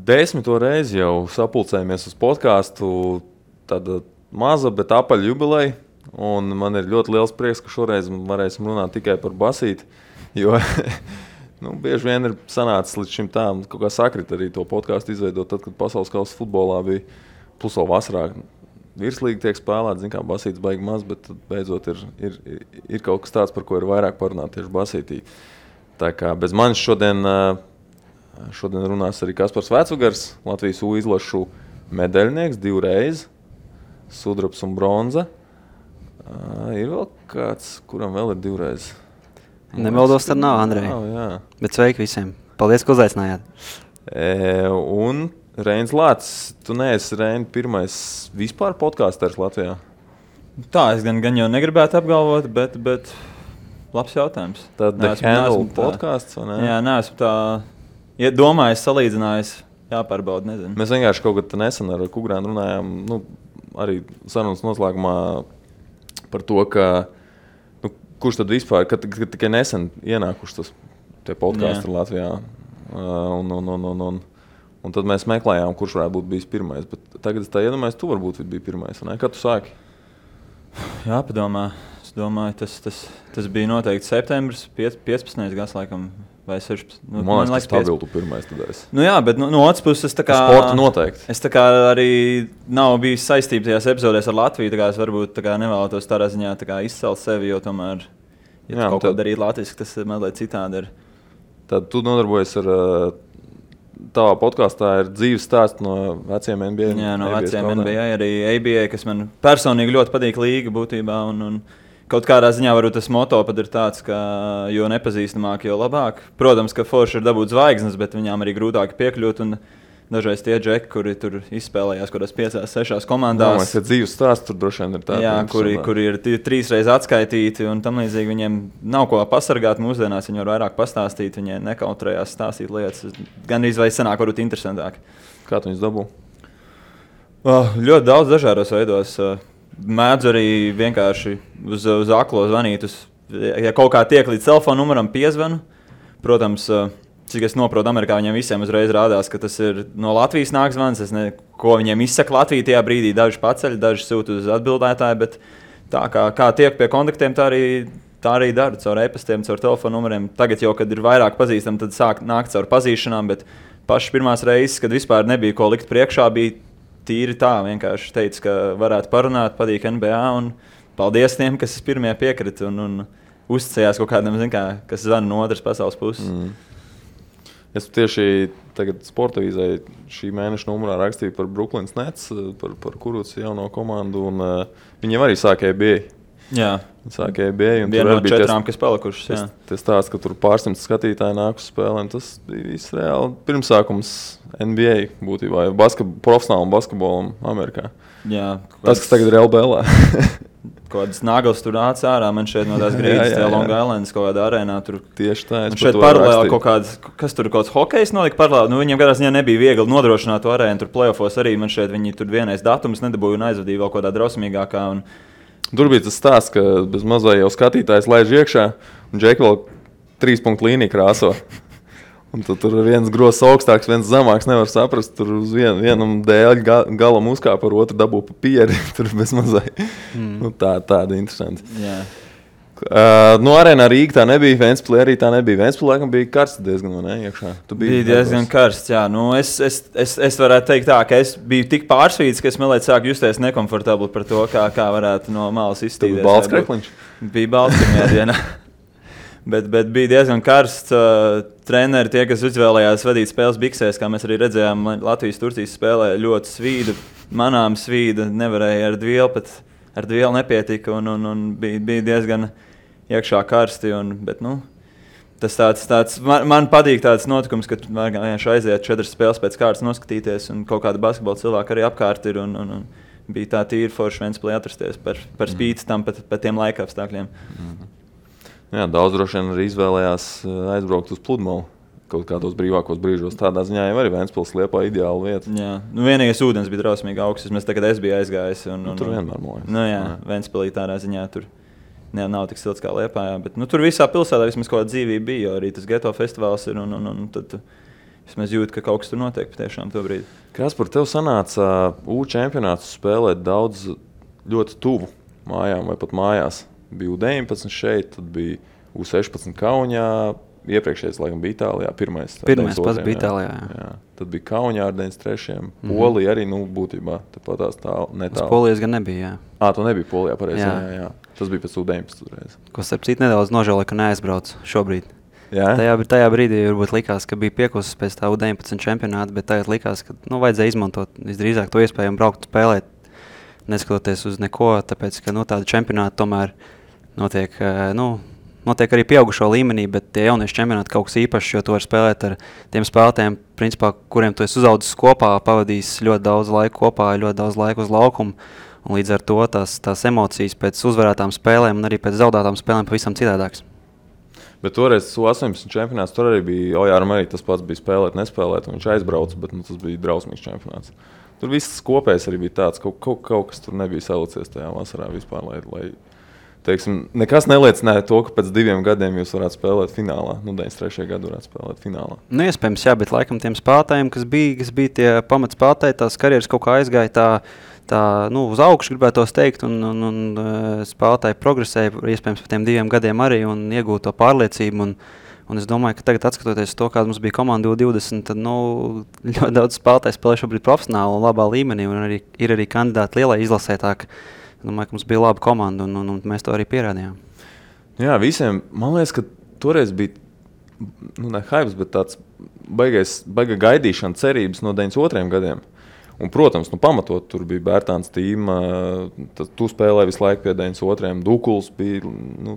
10. reizi jau sapulcējamies uz podcastu, tāda maza, bet apaļa jubileja. Un man ir ļoti liels prieks, ka šoreiz varēsim runāt tikai par basīti, jo bieži vien ir sanācis līdz šim tā, kaut kā sakrit arī to podcastu izveidot, tad, kad pasaules kausa futbolā bija plus vēl vasarā. Virslīgi tiek spēlēt, kā basītis baigi maz, bet beidzot ir kaut kas tāds, par ko ir vairāk parunāt tieši basītī. Tā kā bez manis šodien runās arī Kaspars Vecvagars, Latvijas U izlašu medaļnieks 2 reizes, sudrabs un bronza. Ir vēl kāds, kuram vēl ir 2 reizes? Nemaldos, tad nav, Andrej. Bet sveiki visiem. Paldies, ka uzaicinājāt. Un Reinis Lācis, tu neesi Reini pirmais vispār podkāsters Latvijā? Tā, es gan jau negribētu apgalvot, bet labs jautājums. Tad The Handle podcasts, vai ne? Jā, neesmu tā domājis, salīdzinājis, jāpārbauda, nezinu. Mēs vienkārši kaut kad nesen ar Kugrānu runājām, arī sarunas noslēgumā par to, ka kurš tad vispār, kad tikai nesen ienākuši tie podkāsti Latvijā. Un tad mēs meklējām, kurš varētu būt bijis pirmais. Bet tagad es tā iedomājos, tu varbūt biji pirmais. Ne? Kad tu sāki? Jā, padomā. Es domāju, tas bija noteikti septembris, 15. gads laikam, vai 16. Man liekas, ka stabilu tu pirmais tad esi. Jā, bet no otras puses es tā kā... Sporta noteikti. Es tā kā arī nav bijis saistība tajās epizodēs ar Latviju, tā kā es varbūt tā kā nevēlētos tādā ziņā tā kā izcelt sevi, jo tomēr, ja kaut ko darīt latviski, tas mazliet citādi ir. Tad tu nodarbojies ar... Tavā podkāstā ir dzīves stāsts no veciem NBA. Jā, no veciem NBA, arī ABA, kas man personīgi ļoti patīk līga būtībā. Un kaut kādā ziņā varbūt tas moto pat ir tāds, ka jo nepazīstamāk, jo labāk. Protams, ka forši ir dabūt zvaigznes, bet viņām arī grūtāk piekļūt. Un dažreiz tie džeki, kuri tur izspēlējās kādās 5-6 komandās. Jā, dzīves stāsts tur droši vien ir tāds. Jā, kuri ir 3 reizes atskaitīti un tam līdzīgi viņiem nav ko pasargāt mūsdienās. Viņi var vairāk pastāstīt, viņi nekautrējās stāstīt lietas. Gan arī sanāk varbūt interesantāk. Kā tu viņus dabū? Ļoti daudz dažādos veidos. Mēdzu arī vienkārši uz aklo zvanīt. Ja kaut kā tiek līdz telefona numuram piezvanu, protams, cik es noprotu, Amerikā viņiem visiem uzreiz rādās, ka tas ir no Latvijas nāk zvans. Ko viņiem izsaka Latvija tajā brīdī, daži paceļ, daži sūta uz atbildētāju, bet tā kā tiek pie kontaktiem, tā arī daru, caur e-pastiem, caur telefonu numuriem. Tagad jau, kad ir vairāk pazīstami, tad sāk nākt caur pazīšanām, bet pašas pirmās reizes, kad vispār nebija ko likt priekšā, bija tīri tā, vienkārši teica, ka varētu parunāt, patīk NBA, un paldies tiem, kas pirmie piekrita un uzticējās kaut kādam, kas zvana no otras pasaules puses. Es tieši tagad Sporta avīzē šī mēneša numurā rakstīju par Brooklyns Nets, par Kuruc jauno komandu, un viņiem arī sāka ABA. Jā. Sāka ABA. Viena no 4, kas palikušas, jā. Tas tāds, ka tur pārsimts skatītāji nāk uz spēlēm, tas bija viss reāli pirmsākums NBA būtībā, profesionālam basketbolam Amerikā. Jā. Tas, kas tagad ir LBL. Kaut kādas naglas tur nāca ārā, man šeit no tās grīdas, tajā Long Islandas kaut kādā arēnā. Tur tieši tā. Man šeit paralēli kaut kāds, kas tur kaut kāds hokejs nolika paralēli. Viņiem kādā ziņā nebija viegli nodrošināt to arēnu, tur play-offos arī man šeit viņi tur vienais datums nedabūja un aizvadīja vēl kaut kādā drausmīgākā. Tur bija tas stāsts, ka bez mazai jau skatītājs laiž iekšā un Džeki vēl 3 punktu līniju krāso. Un tur viens grozs augstāks, viens zemāks, nevar saprast. Tur uz vienam dēļ galam uzkāpa, ar otru dabū pa pieri. Tur bez mazai. Tāda interesanti. Jā. Arēnā Rīga tā nebija, Ventspilī arī tā nebija. Ventspilī laikam bija karsts diezgan, vai ne, iekšā? Bija diezgan karsts, jā. Es varētu teikt tā, ka es biju tik pārsvīts, ka es mēlēt sāku justies nekomfortabli par to, kā varētu no malas izstīties. Tu bija balts krekliņš? Bija balts pirmajā dienā. Bet bija diezgan karsts. Treneri, tie, kas izvēlējās vadīt spēles biksēs, kā mēs arī redzējām, Latvijas-Turcijas spēlē ļoti svīda, manām svīda, nevarēja ar dvielu nepietika un bija diezgan iekšā karsti. Bet, tas tāds man patīk tāds notikums, ka vienkārši aiziet 4 spēles pēc kārtas noskatīties un kaut kāda basketbola cilvēka arī apkārt ir un bija tā tīri forši Ventspilī atrasties par spīti tam pat tiem laika apstākļiem. Jā, daudz droši vien arī izvēlējās aizbraukt uz pludmali kaut kādos brīvākos brīžos. Tādā ziņā jau arī Ventspils Liepā ideāla vieta. Jā, vienīgais ūdens bija drausmīgi augsts. Es biju aizgājis. Tur vienmēr mojas. Jā, Ventspilī tādā ziņā tur nav tik silts kā Liepājā. Bet tur visā pilsētā vismaz kaut kāda dzīvība bija, jo arī tas geto festivāls ir. Tad vismaz jūt, ka kaut kas tur notiek patiešām to brīdi. Kas par tevi sanāca U čempionātus spēlēt daudz ļoti tuvu mājām vai pat mājās? Bija U19 šeit, tad bija U16 Kaunijā, iepriekšējais laikam bija Itālijā, pirmais pats bija Itālijā. Jā. Tad bija Kaunijā ar 93. Polija arī, būtībā, tāpat tās netālu. Tas Polijas gan nebija, jā. Tu nebija Polijā, pareizi, jā. Tas bija pēc U19 reiz. Ko starp citu nedaudz nožēloju, ka neaizbrauc šobrīd. Jā? Tajā brīdī varbūt likās, ka bija piekusis pēc tā U19 čempionāta, bet tagad likās, ka vajadzēja izmantot visdrīzāk to iespēju un braukt spēlēt, neskatoties uz neko, tāpēc, ka tāda čempionāta tomēr notiek arī pieaugušo līmenī, bet tie jaunieši čempionāti kaut kas īpašs, jo tu vari spēlēt ar tiem spēlētājiem, principā, kuriem tu esi uzaudzis kopā, pavadījis ļoti daudz laika kopā, ļoti daudz laika uz laukumu, un līdz ar to tās emocijas pēc uzvarētām spēlēm un arī pēc zaudētām spēlēm pavisam citādākas. Bet toreiz U18 čempionāts, tur arī bija Ojāram arī tas pats bija spēlēt, nespēlēt, un viņš aizbrauca, bet tas bija drausmīgs čempionāts. Tur viss kopējs arī bija tāds, kaut kas tur nebija salicies tajā vasarā vispār, lai teiksim, nekas neliecināja to, ka pēc 2 gadiem jūs varētu spēlēt finālā. 93. gadu varētu spēlēt finālā. Iespējams, jā, bet laikam tiem spēlētājiem, kas bija tie pamatspēlētāji, tās karjeras kaut kā aizgāja tā uz augšu, gribētos teikt, un spēlētāji progresēja, iespējams, par tiem 2 gadiem arī un iegūta to pārliecību. Un es domāju, ka tagad, skatoties to, kāda mums bija komanda U20, tad ļoti daudz spēlētāji spēlē šobrīd profesionāli un labā līmenī, un ir arī kandidāti lielai izlasē. Es domāju, ka mums bija laba komanda, un mēs to arī pierādījām. Jā, visiem, man liekas, ka toreiz bija, ne hypes, bet tāds baiga gaidīšana, cerības no 92. gadiem. Un, protams, pamatot tur bija Bērtāns tīma, tu spēlēji visu laiku pie 92. Dukuls bija,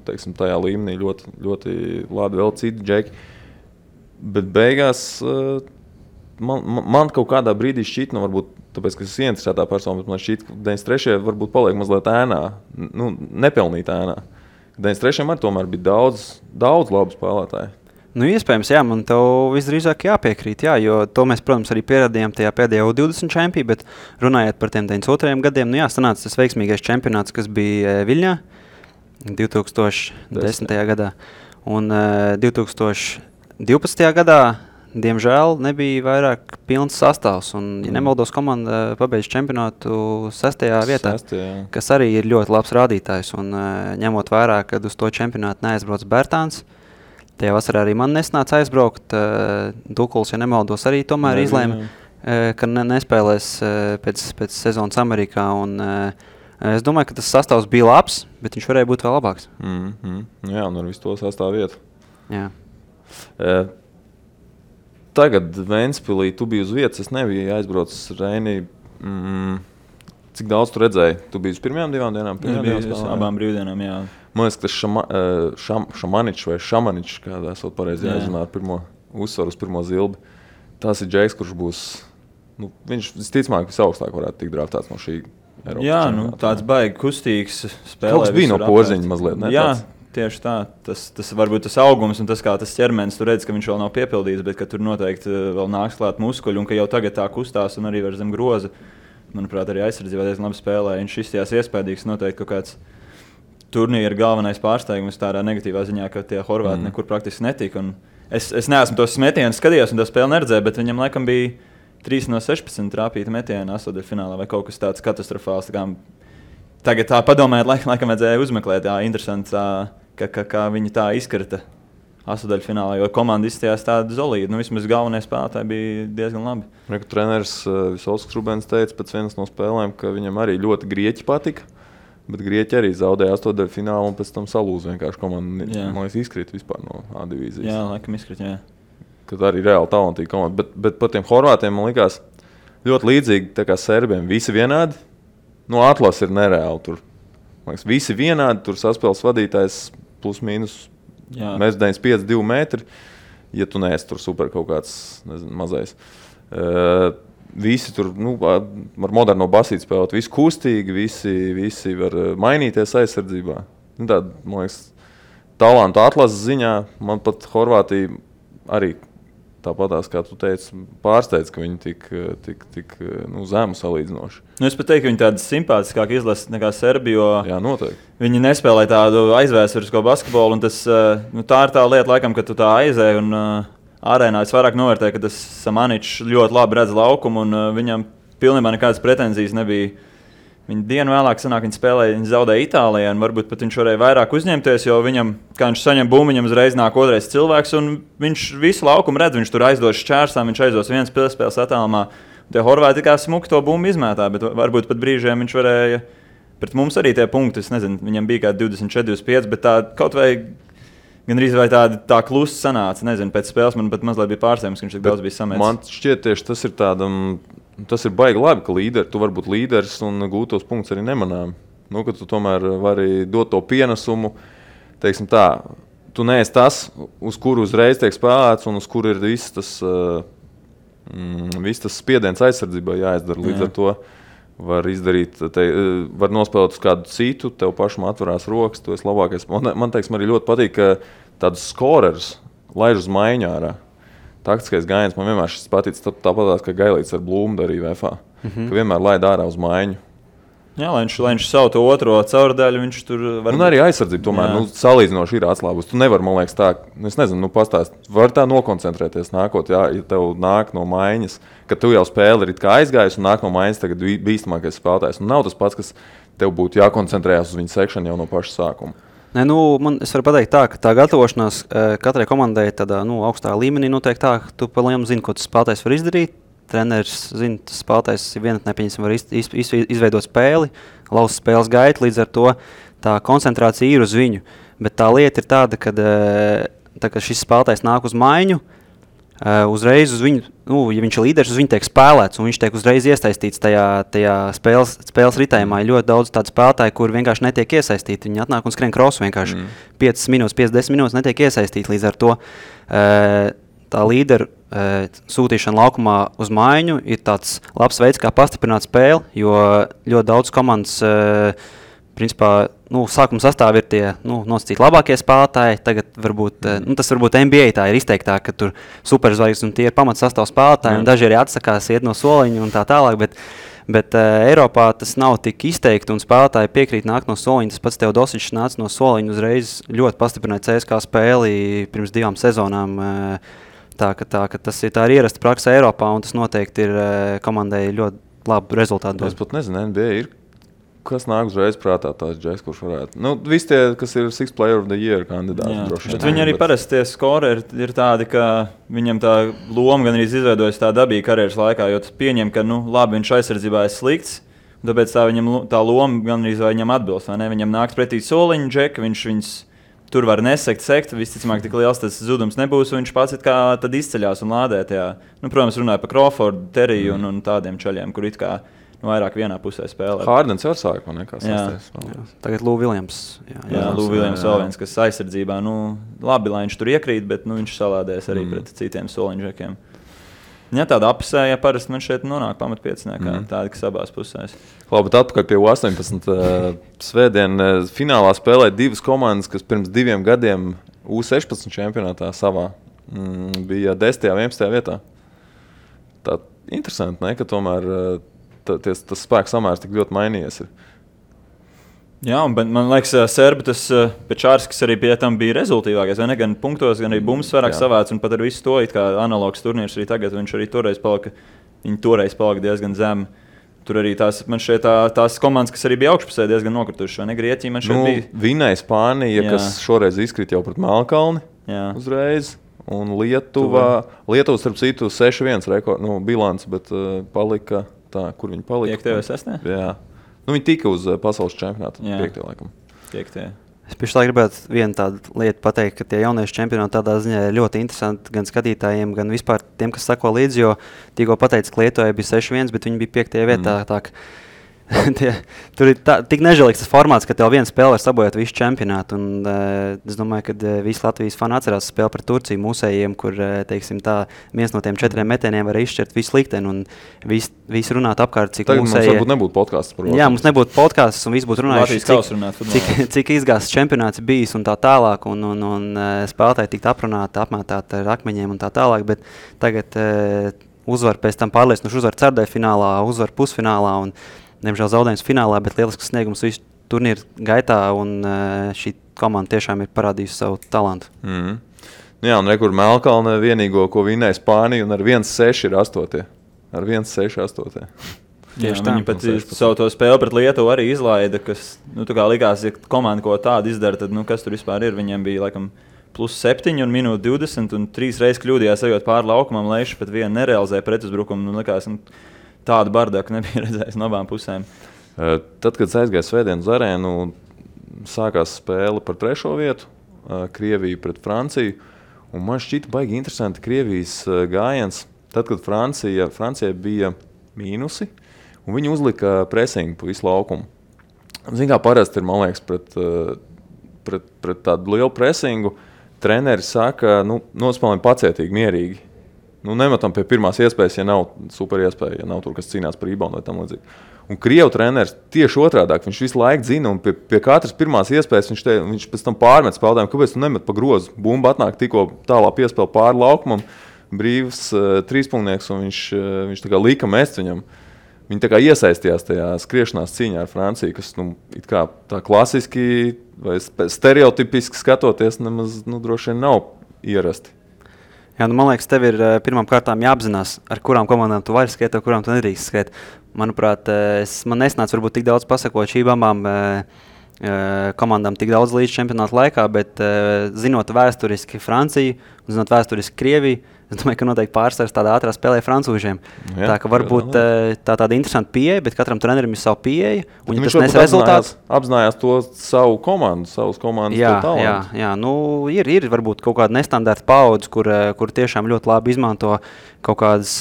teiksim, tajā līmenī ļoti, ļoti labi, vēl citi džeki. Bet beigās man kaut kādā brīdī šķiet, varbūt tāpēc, ka es esmu ieinteresētā persona, bet man šķiet, ka 93. varbūt paliek mazliet ēnā, nepelnīt ēnā. 93. arī tomēr bija daudz labu spēlētāju. Iespējams, jā, man tev visdrīzāk jāpiekrīt, jā, jo to mēs, protams, arī pierādījām tajā pēdējā U20 čempī, bet runājot par tiem 92. gadiem, sanāca tas veiksmīgais čempionāts, kas bija Viļņā 2010. gadā. Un 2012. gadā, diemžēl, nebija vairāk pilns sastāvs, un, ja nemaldos, komanda pabeidz čempionātu 6. vietā, kas arī ir ļoti labs rādītājs, un ņemot vērā, kad uz to čempionātu neaizbrauc Bērtāns, tajā vasarā arī man nesnāca aizbraukt. Dukuls, ja nemaldos, arī tomēr izlēma, ka nespēlēs pēc sezonas Amerikā. Un, es domāju, ka tas sastāvs bija labs, bet viņš varēja būt vēl labāks. Jā, un ar visu to sastāvu vietu. Jā. Tagad Ventspilī tu biji uz vietas, es nebiju aizbraucis Reinī. Cik daudz tu redzēji? Tu biji uz pirmajām 2 dienām? Es biju uz abām brīvdienām, jā. Man liekas, ka Šamaničs vai Šamaničs, kādā esot pareizi jāizrunā ar pirmo uzsvaru uz pirmo zilbi. Tas ir džeks, kurš būs, viņš visticamāk visaugstāk varētu tikt draftāts no šī Eiropas čempionāta. Tāds baigi kustīgs spēlē. Kaut kas bija no Porziņa mazliet, ne? Jā, tieši tā. Tas varbūt tas augums un tas, kā tas ķermenis, tu redz, ka viņš vēl nav piepildīts, bet ka tur noteikti vēl nāks klāt muskuļi un ka jau tagad tā kustās un arī var zem groza. Manuprāt, arī aizsardzībā diezgan labi spēlē. Viņš izstījās iespējīgs, noteikti kaut kāds turnīra galvenais pārsteigums tādā negatīvā ziņā, ka tie horvāti nekur praktiski netika. Un es neesmu tos metienus skatījos un to spēli neredzēju, bet viņam laikam bija 3 no 16 trāpīta metiena astotdaļfinālā vai kaut kas tāds katastrofāls. Tagad tā padomājot, laikam vajadzēja uzmeklēt, interesanti, kā viņi tā izkrita astotdaļfinālā, jo komanda izstījās tāda zolīda. Vismaz galvenie spēlētāji bija diezgan labi. Treneris Visvalds Krubens teica pēc vienas no spēlēm, ka viņam arī ļoti grieķi patika. Bet grieķi arī zaudēja astotdaļfinālu un pēc tam salūza vienkārši komanda. Man liekas, izkrīt vispār no A divīzijas. Jā, laikam izkrīt, jā. Kad arī reāli talantīga komanda. Bet par tiem horvātiem man likās ļoti līdzīgi tā kā serbiem. Visi vienādi. Atlas ir nereāli tur. Man liekas, visi vienādi. Tur saspēles vadītājs plus mīnus. Mēs 95, 2 metri. Ja tu neesi tur super kaut kāds, mazais. Visi tur ar moderno basīti spēlēt, visi kustīgi, visi var mainīties aizsardzībā. Tāda, man liekas, talantu atlases ziņā man pat Horvātija arī tāpatās, kā tu teici, pārsteidz, ka viņi tik zemu salīdzinoši. Es pat teiktu, ka viņi tādi simpātiskāki izlasa nekā Serbija, jo jā, noteikti. Viņi nespēlē tādu aizvēsturisko basketbolu, un tas, tā ir tā lieta, laikam, ka tu tā aizēji un arēnā es vairāk novērtēju, ka tas Samaničs ļoti labi redz laukumu, un viņam pilnībā nekādas pretenzijas nebija. Viņa dienu vēlāk sanāk, viņa spēlēja, viņa zaudēja Itālijā, un varbūt pat viņš varēja vairāk uzņemties, jo viņam, kā viņš saņem bumbu, viņam uzreiz nāk otrais cilvēks, un viņš visu laukumu redz, viņš tur aizdos šķērsām, viņš aizdos vienas piespēles attālumā. Tie Horvāti kā smuki to bumbu izmētā, bet varbūt pat brīžiem viņš varēja, pret mums arī tie punkti, es nezinu, viņam bija kā 24-25, bet tā kaut vai gandrīz vai tā klusa sanāca, nezinu, pēc spēles man pat mazliet bija pārsteigums, ka viņš tik daudz bija samēts. Man šķiet tieši tas ir baigi labi, ka tu vari būt līderis un gūt tos punktus arī nemanām. Nu, ka tu tomēr vari dot to pienesumu, teiksim tā, tu neesi tas, uz kuru uzreiz tiek spēlēts un uz kuru ir viss tas spiediens aizsardzībā jāizdara. Līdz ar to var izdarīt, var nospēlēt uz kādu citu, tev pašam atverās rokas, tu esi labākais. Man teiksim, arī ļoti patīk, ka tādus skorerus laiž uz maiņu ārā. Taktiskais gājiens man vienmēr šis patīc, tāpatās, ka Gailīts ar Blūmu darīja VFA, ka vienmēr laid ārā uz maiņu. Jā, lai viņš savu to otro caurdaļu, viņš tur var... Un arī aizsardzība tomēr, salīdzinoši ir atslābus. Tu nevar, man liekas, tā, es nezinu, pastāst, var tā nokoncentrēties nākot, ja tev nāk no maiņas, ka tu jau spēli ir it kā aizgājis un nāk no maiņas tagad bīstamākais spēlētājs. Un nav tas pats, kas tev būtu jākoncentrējas uz viņu sekšanu jau no paša sākuma. Nē, es varu pateikt tā, ka tā gatavošanās katrai komandai tādā augstā līmenī notiek tā, ka tu pa lielu zini, ko tas spēlētājs var izdarīt. Treneris zina, tas spēlētājs vienatnē var izveidot spēli, laust spēles gaitu, līdz ar to tā koncentrācija ir uz viņu. Bet tā lieta ir tāda, ka šis spēlētājs nāk uz maiņu, uzreiz uz viņu, ja viņš ir līderis, uz viņu tiek spēlēts, un viņš tiek uzreiz iesaistīts tajā spēles ritējumā. Ir ļoti daudz tādu spēlētāju, kur vienkārši netiek iesaistīti. Viņi atnāk un skrien krosu vienkārši 5 minūtes, 5-10 minūtes netiek iesaistīti. Līdz ar to tā līderu sūtīšana laukumā uz maiņu ir tāds labs veids, kā pastiprināt spēli, jo ļoti daudz komandas principā, sākuma sastāvā ir tie nosacīti labākie spēlētāji. Tagad tas varbūt NBA tā ir izteiktāk, ka tur superzvaigznes un tie ir pamatsastāv spēlētāji, un daži arī atsakās iet no soliņa un tā tālāk, bet Eiropā tas nav tik izteikti, un spēlētāji piekrīt nākt no soliņa. Tas pats Teodosičs nāca no soliņa uzreiz ļoti pastiprināja CSKA spēli pirms 2 sezonām. Tā ir ierasta praksa Eiropā, un tas noteikti ir komandai ļoti labu rezultātu. Es pat nezinu, NBA ir. Kas nāk uzreiz prātā tās džeks, kurš varētu? Visi tie, kas ir Sixth Player of the Year kandidāti. Bet viņi arī parasti tie skori ir tādi, ka viņam tā loma gan arī izveidojas tā dabīgi karjeras laikā, jo tas pieņem, ka, labi, viņš aizsardzībā ir slikts, tāpēc tā loma gan arī viņam atbilst, vai ne? Viņam nāks pretī soliņu džeki, viņš tur var sekt, visticamāk tik liels tas zudums nebūs, un viņš pats tad izceļās un lādē tajā. Protams, runāja par Crawfordu, Teriju un tādiem čaļiem, kur it kā vairāk vienā pusē spēlē. Hārdens var sākt, man nekā sasties. Tagad Lou Williams. Lou Williams vēl viens, kas aizsardzībā, labi, lai viņš tur iekrīt, bet viņš salādēs arī pret citiem soliņžekiem. Ja tāda apsēja parasti man šeit nonāk pamatpieciniekā, tāda, kas abās pusēs. Labi, bet atpakaļ pie U18 svētdien finālā spēlēja 2 komandas, kas pirms 2 gadiem U16 čempionātā savā bija 10. un 11. vietā. Tā interesanti, ne, ka tomēr tas spēks samērs tik ļoti mainījies. Jā, un man liekas, Serbi tas Pečārskis arī pie tam bija rezultīvākais. Gan punktos, gan arī bumbas vairāk savāc, un pat ar visu to, kā analogs turnīrs arī tagad, viņš arī toreiz palika diezgan zem. Tur arī tās komandas, kas arī bija augšpusē, diezgan nokritušas. Grieķija man šeit bija. Vinēja Spānija, kas šoreiz izkrīt jau pret Melnkalni uzreiz. Un Lietuva, starp citu, 6-1 bilants, bet palika tā, kur viņi palika. 5. vai 6. Jā. Viņi tika uz pasaules čempionāta 5. laikam. 5. Es pašlaik gribētu vienu tādu lietu pateikt, ka tie jauniešu čempionāti tādā ziņā ir ļoti interesanti gan skatītājiem, gan vispār tiem, kas sako līdzi, jo tikko pateica, ka Lietuvai bija 6-1, bet viņi bija 5. vietā. Tur ir tik nežēlīgs tas formāts, ka tev viena spēle var sabojāt visu čempionātu. Un, es domāju, ka visi Latvijas fani atcerās spēli pret Turciju mūsējiem, kur viens no tiem 4 metieniem var izšķirt visu likteni. Un visi runāt apkārt, cik tagad mūsējie... Mums nebūtu podcasts par Jā, mums nebūtu podcasts un visi būtu runājuši, cik izgāsts čempionāts bijis un tā tālāk. Un spēlētāji tikt aprunāti, apmētāti ar akmeņiem un tā tālāk. Bet tagad uzvar pēc tam pārliecinoši uzvar ceturtajā finālā, uzvar pusfinālā un diemžēl zaudējums finālā, bet lielisks sniegums visu turnīru gaitā, un šī komanda tiešām ir parādījusi savu talantu. Jā, un rekur Melkalne vienīgo, ko vinēja Spānija, un ar 1-6 ir 8. Ar 1-6-8. Tieši tā. Viņi pat savu to spēli pret Lietuvu arī izlaida, kas, tā kā likās, ja komanda ko tādu izdara, tad, kas tur vispār ir? Viņiem bija, laikam, +7 un minūte 20, un 3 reizes kļūdījās ejot pāri laukumam, Leišs pat vienu nerealizēja pretuzbrukumu, likās, tādu bardaku nebija redzējis no abām pusēm. Tad, kad aizgāja svētdien uz arēnu, sākās spēle par 3. vietu, Krievija pret Franciju, un man šķita baigi interesanti Krievijas gājiens, tad, kad Francijai bija mīnusi, un viņi uzlika presingu pa visu laukumu. Zin kā parasti ir, man liekas, pret tādu lielu presingu, treneri saka, nospēlējam pacietīgi, mierīgi. Nemetam pie pirmās iespējas, ja nav super iespēja, ja nav tur, kas cīnās par reboundu vai tam līdzīgi. Un Krievu treneris tieši otrādāk, viņš visu laiku zina, un pie katras pirmās iespējas viņš pēc tam pārmet spēlētājiem, kāpēc tu nemet pa grozu. Bumba atnāk tikko tālā piespēle pāri laukumam, brīvs trīspunktnieks, un viņš tā kā lika mest viņam. Viņi tā kā iesaistījās tajā skriešanās cīņā ar Franciju, kas it kā tā klasiski vai stereotipiski skatoties nemaz droši vien nav ierasti. Jā, man liekas, tev ir pirmām kārtām jāapzinās, ar kurām komandām tu vari skriet, ar kurām tu nedrīkst skriet. Manuprāt, man nesnāca varbūt tik daudz pasakot šīm abām komandām tik daudz līdz čempionāta laikā, bet zinot vēsturiski Franciju un zinot vēsturiski Krieviju, es domāju, ka noteikti pārsvars tādā ātrā spēlē francūžiem. Jā, tā ka varbūt tāda interesanta pieeja, bet katram trenerim ir savu pieeju. Un viņš tas nes rezultāts. Apzinājās to savu komandu, savas komandas talantu. Jā, ir varbūt kaut kāda nestandarta paudze, kur tiešām ļoti labi izmanto kaut kādas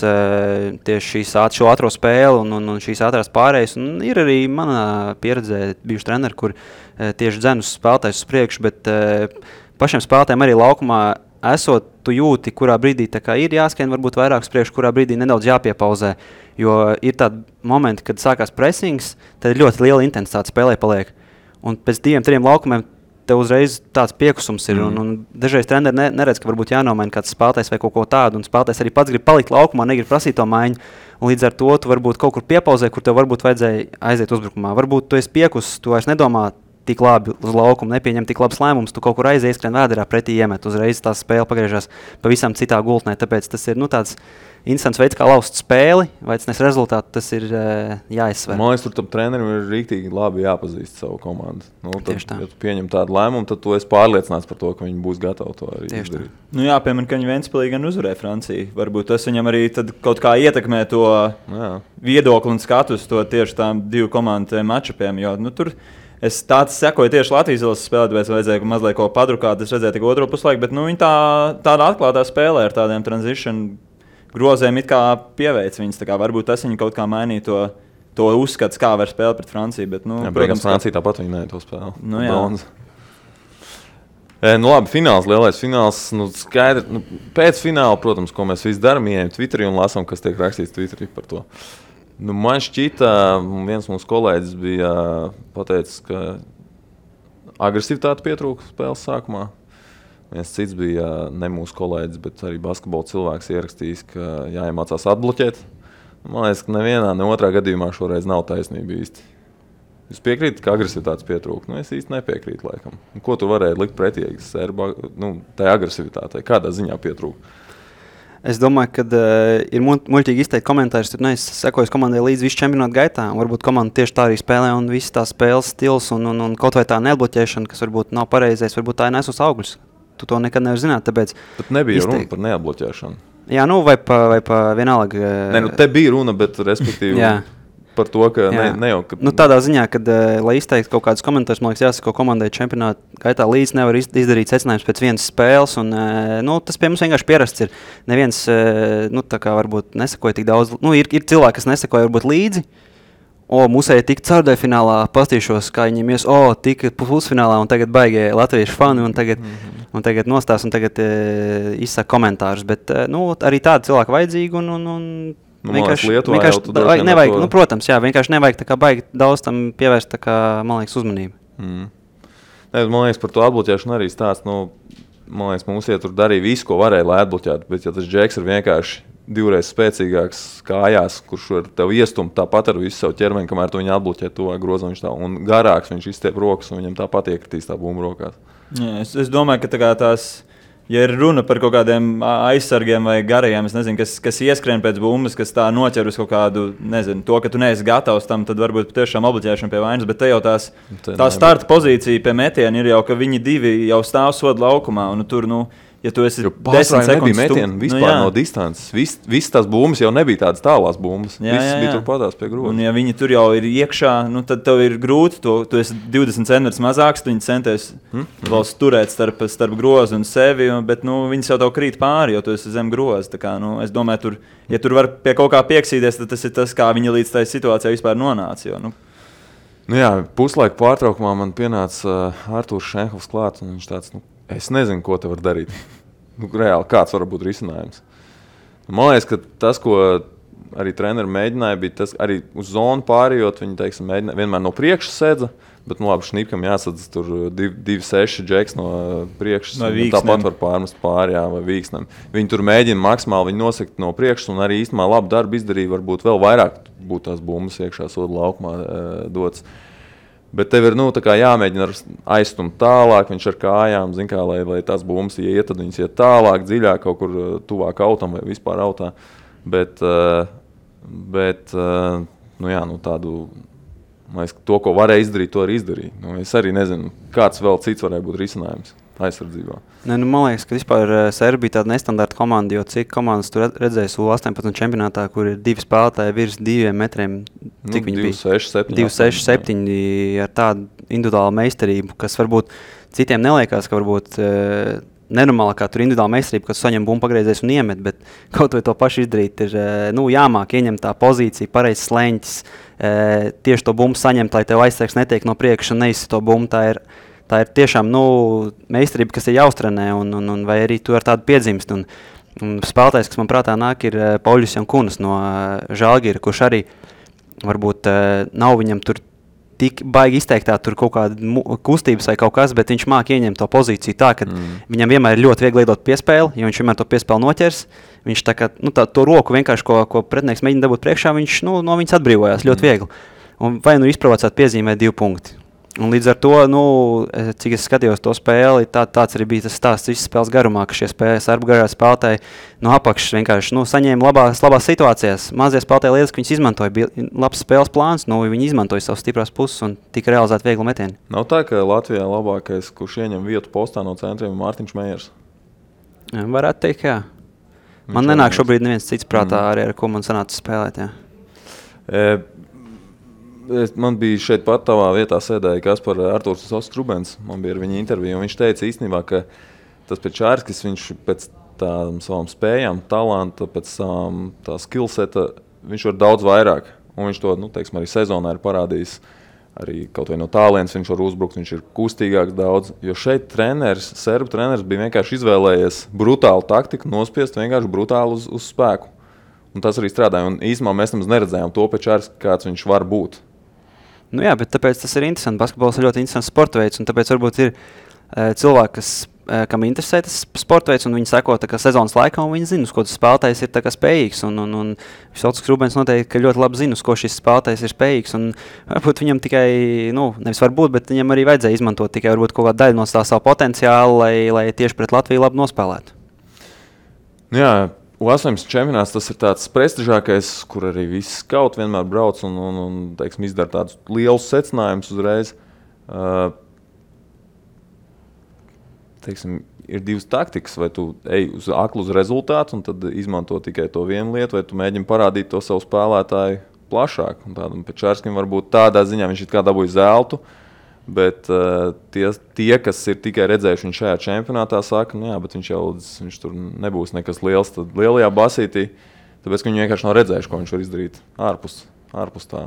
tieši šo ātro spēli un šīs ātrās pārējas. Un ir arī manā pieredzē bijuši treneri, kur tieši dzen uz spēlētājus uz priekšu, bet pašiem spēlētājiem arī laukumā esot, tu jūti, kurā brīdī ir jāskrien varbūt vairāk uz priekšu, kurā brīdī nedaudz jāpiepauzē. Jo ir tādi momenti, kad sākās pressings, tad ir ļoti liela intensitāte spēlē paliek. Un pēc 2-3 laukumiem tev uzreiz tāds piekusums ir. Un dažreiz treneri neredz, ka varbūt jānomaina kāds spēlētājs vai kaut ko tādu. Un spēlētājs arī pats grib palikt laukumā, negrib prasīt to maiņu. Un līdz ar to tu varbūt kaut kur piepauzē, kur tev varbūt vajadzēja aiziet uzbrukumā. Varbūt tu esi piekusis, tu vairs nedomā tik labi uz laukumu, nepieņem tik labs lēmums, tu kaut kur aizies, skrien vēderā pretī iemet. Uzreiz tā spēle pagriežās pavisam citā gultnē. Tāpēc tas ir tāds interesants veids, kā laust spēli, vai tas nes rezultātu, tas ir jāizsver. Man liekas, tur trenerim ir rīktīgi labi jāpazīst savu komandu. Tad, ja tu pieņem tādu lēmumu, tad tu esi pārliecināts par to, ka viņi būs gatavi to arī izdarīt. Jā, piemēram, ka viņi Ventspilī gan uzvarēja Franciju. Varbūt tas viņam arī kaut kā ietekmē to viedokli un skatus to tieši tām divu komandu matčupiem, jo tur es tāds sekoju tieši Latvijas izlases spēlē, tāpēc vajadzēja mazliet ko padrukāt. Es redzēju tikai otro puslaiku, bet viņi tāda atklātā spēlē ar tādiem transition grozēm it kā pieveic viņus. Varbūt tas viņi kaut kā mainīja to uzskats, kā var spēlēt pret Franciju. Bet, protams, Francija tāpat viņi neja to spēli. Labi, fināls, lielais fināls. Skaidri, pēc fināla, protams, ko mēs visi darām, ieejam Twitterī un lasām, kas tiek rakstīts Twitterī par to. Man šķita, viens mūsu kolēģis bija pateicis, ka agresivitāte pietrūka spēles sākumā. Viens cits bija ne mūsu kolēģis, bet arī basketbola cilvēks ierakstījis, ka jāiemācās atbloķēt. Man liekas, ka nevienā, ne otrā gadījumā šoreiz nav taisnība īsti. Jūs piekrītat, ka agresivitātes pietrūka? Es īsti nepiekrītu laikam. Ko tu varēji likt pretī tai agresivitātei? Kādā ziņā pietrūka? Es domāju, ka ir muļķīgi izteikt komentārus, tur es sekoju komandai līdz visu čempionātu gaitā, un varbūt komanda tieši tā arī spēlē, un viss tā spēles stils un kaut vai tā neatbloķēšana, kas varbūt nav pareizais, varbūt tā ir nesus augļus. Tu to nekad nevar zināt, tāpēc... Bet nebija runa par neatbloķēšanu. Jā, vai pa vienalga... Te bija runa, bet respektīvi... Par to, ka ne jau... Ka... tādā ziņā, kad, lai izteiktu kaut kādus komentārus, man liekas, jāsako komandai čempionāta gaitā līdz nevar izdarīt secinājums pēc vienas spēles, un tas pie mums vienkārši pierasts ir. Neviens, tā kā varbūt nesakoja tik daudz, ir cilvēki, kas nesakoja varbūt līdzi, mūsēji tik caurdēja finālā, pastīšos, kā viņiem tika pusfinālā, un tagad baigie latviešu fani, un tagad nostās, un tagad izsaka komentārus, bet, arī tādi cilvēki vajadzīgi, un vienkārši nevajag, protams, vienkārši nevajag baigi daudz tam pievērst, man liekas, uzmanību. Man liekas, par to atbloķēšanu arī stāsts, man liekas, mums tur darīja visu, ko varēja, lai atbloķētu, bet ja tas džeks ir vienkārši divreiz spēcīgāks kājās, kurš var tev iestumt tāpat ar visu savu ķermeni, kamēr tu viņu atbloķē tuvāk grozam, viņš tā, un garāks viņš izstiep rokas, un viņam tāpat iekritīs tā bumba rokās. Jā, es domāju, ka tās Ja ir runa par kaut kādiem aizsargiem vai garajiem, es nezinu, kas ieskrien pēc bumbas, kas tā noķer uz kaut kādu, nezinu, to, ka tu neesi gatavs tam, tad varbūt tiešām obligēšana pie vainas, bet te jau tā starta pozīcija pie metiena ir jau, ka viņi divi jau stāv soda laukumā, un tur, ja tu esi 10 sekundes metienu vispār no distances, viss tās bumbas jau nebija tādas tālās bumbas, viss bija tur patās pie groza. Un ja viņi tur jau ir iekšā, tad tev ir grūti, tu esi 20 centimetrus mazāks, tu viņi centies vēl turēt starp grozu un sevi, bet viņi jau tev krīt pāri, jo tu esi zem groza. Tā kā, es domāju, ja tur var pie kaut kā pieksīties, tad tas ir tas, kā viņi līdz tai situācijai vispār nonāca. Jo, jā, puslaika pārtraukumā man pienāca Artūrs Šenhovs klāt, un viņš tāds, es nezinu, ko te var darīt. Reāli, kāds var būt risinājums. Man liekas, ka tas, ko arī treneri mēģināja, bija tas arī uz zonu pārējot. Viņi, teiksim, mēģināja vienmēr no priekšas sedza, bet, labi, Šnipkam jāsadz tur 2-6 džeks no priekšas. Tāpat var pārmest pārējā vai Vīksnam. Viņi tur mēģina maksimāli viņu nosekt no priekšas un arī īstenībā labu darbu izdarīja. Varbūt vēl vairāk būtu tās bumbas iekšā soda laukumā dots. Bet tev ir jāmēģina aizstumt tālāk, viņš ar kājām, kā, lai tās bumbas iet, tad viņas iet tālāk, dziļāk, kaut kur tuvāk autam vai vispār autā. Bet tādu, to, ko varēja izdarīt, to arī izdarīja. Es arī nezinu, kāds vēl cits varēja būt risinājums aizsardzībā. Man liekas, ka vispār Serbija bija tāda nestandarta komanda, jo cik komandas tur redzēs U18 čempionātā, kur ir 2 spēlētāji virs 2 metriem. Cik viņi bija? 2-6-7 ar tādu individuālu meistarību, kas varbūt citiem neliekās, ka varbūt nenormālākā tur individuāla meistarība, kas saņem bumbu pagriezēs un iemet, bet kaut vai to pašu izdarīt ir jāmāk ieņemt tā pozīcija, pareizs sleņķis, tieši to bumbu saņemt, lai tev aizsargs netiek no priekša un neizsit to bumbu. Tā ir tiešām meistarība, kas ir jāuztrenē, un vai arī tu ar tādu piedzimst. Un spēlētājs, kas man prātā nāk, ir Pauļus Jankunas no Žalgira, kurš arī varbūt nav viņam tur tik baigi izteiktā tur kaut kāda kustības vai kaut kas, bet viņš māk ieņemt to pozīciju tā, ka viņam vienmēr ir ļoti viegli liedot piespēli, jo viņš vienmēr to piespēli noķers. Viņš tā kā, to roku vienkārši, ko pretinieks mēģina dabūt priekšā, viņš no viņas atbrīvojās ļoti viegli. Un vai izprovocēt piezīmē 2 punkti. Un līdz ar to, cik es skatījos to spēli, tāds arī bija tas stāsts visas spēles garumā, ka šie sarbu garā spēlētāji no apakšas vienkārši saņēma labās situācijās. Mazie spēlētāji lietas, ka viņas izmantoja, bija labs spēles plāns, viņi izmantoja savas stiprās puses un tika realizēti viegli metieni. Nav tā, ka Latvijā labākais, kurš ieņem vietu postā no centriem, ir Mārtiņš Mejers? Varētu teikt, jā. Man nenāk šobrīd neviens cits prātā arī, ar ko man sanāca spēlēt, jā. Man bija šeit pat tavā vietā sēdēja Artūrs Ostrubens. Man bija ar viņu interviju, un viņš teica īstenībā, ka tas Pečārskis, viņš pēc tām savām spējām, talanta, pēc savām tā skillseta, viņš var daudz vairāk. Un viņš to, teiksim, arī sezonā ir parādījis. Arī kaut vai no tālienes viņš var uzbrukt, viņš ir kustīgāks daudz. Jo šeit serbu treneris bija vienkārši izvēlējies brutālu taktiku, nospiest vienkārši brutāli uz spēku. Un tas arī strādāja. Un īstenībā mēs nemaz neredzējām to Pečārski, kāds viņš var būt. Jā, bet tāpēc tas ir interesanti. Basketbols ir ļoti interesants sporta veids, un tāpēc varbūt ir cilvēki, kam interesē tas sporta veids, un viņi seko sezonas laikā, un viņi zina, uz ko tas spēlētājs ir spējīgs. Un Visots Rubens noteikti, ka ļoti labi zina, uz ko šis spēlētājs ir spējīgs. Un varbūt viņam tikai, nevis varbūt, bet viņam arī vajadzēja izmantot tikai varbūt kaut kādu daļu no tā savu potenciālu, lai tieši pret Latviju labi nospēlētu. Jā. U18 čempionāts tas ir tāds prestižākais, kur arī visi skauti vienmēr brauc un teiksim, izdara tādus lielus secinājumus uzreiz. Teiksim, ir 2 taktikas, vai tu ej uz aklu uz rezultātu un tad izmanto tikai to vienu lietu, vai tu mēģini parādīt to savu spēlētāju plašāk. Un tādam Pečārskim varbūt tādā ziņā viņš it kā dabūja zeltu, bet tie, kas ir tikai redzējuši viņu šajā čempionātā, saka, bet viņš tur nebūs nekas liels. Tad lielajā basītī, tāpēc, ka viņi vienkārši nav redzējuši, ko viņš var izdarīt ārpus tā.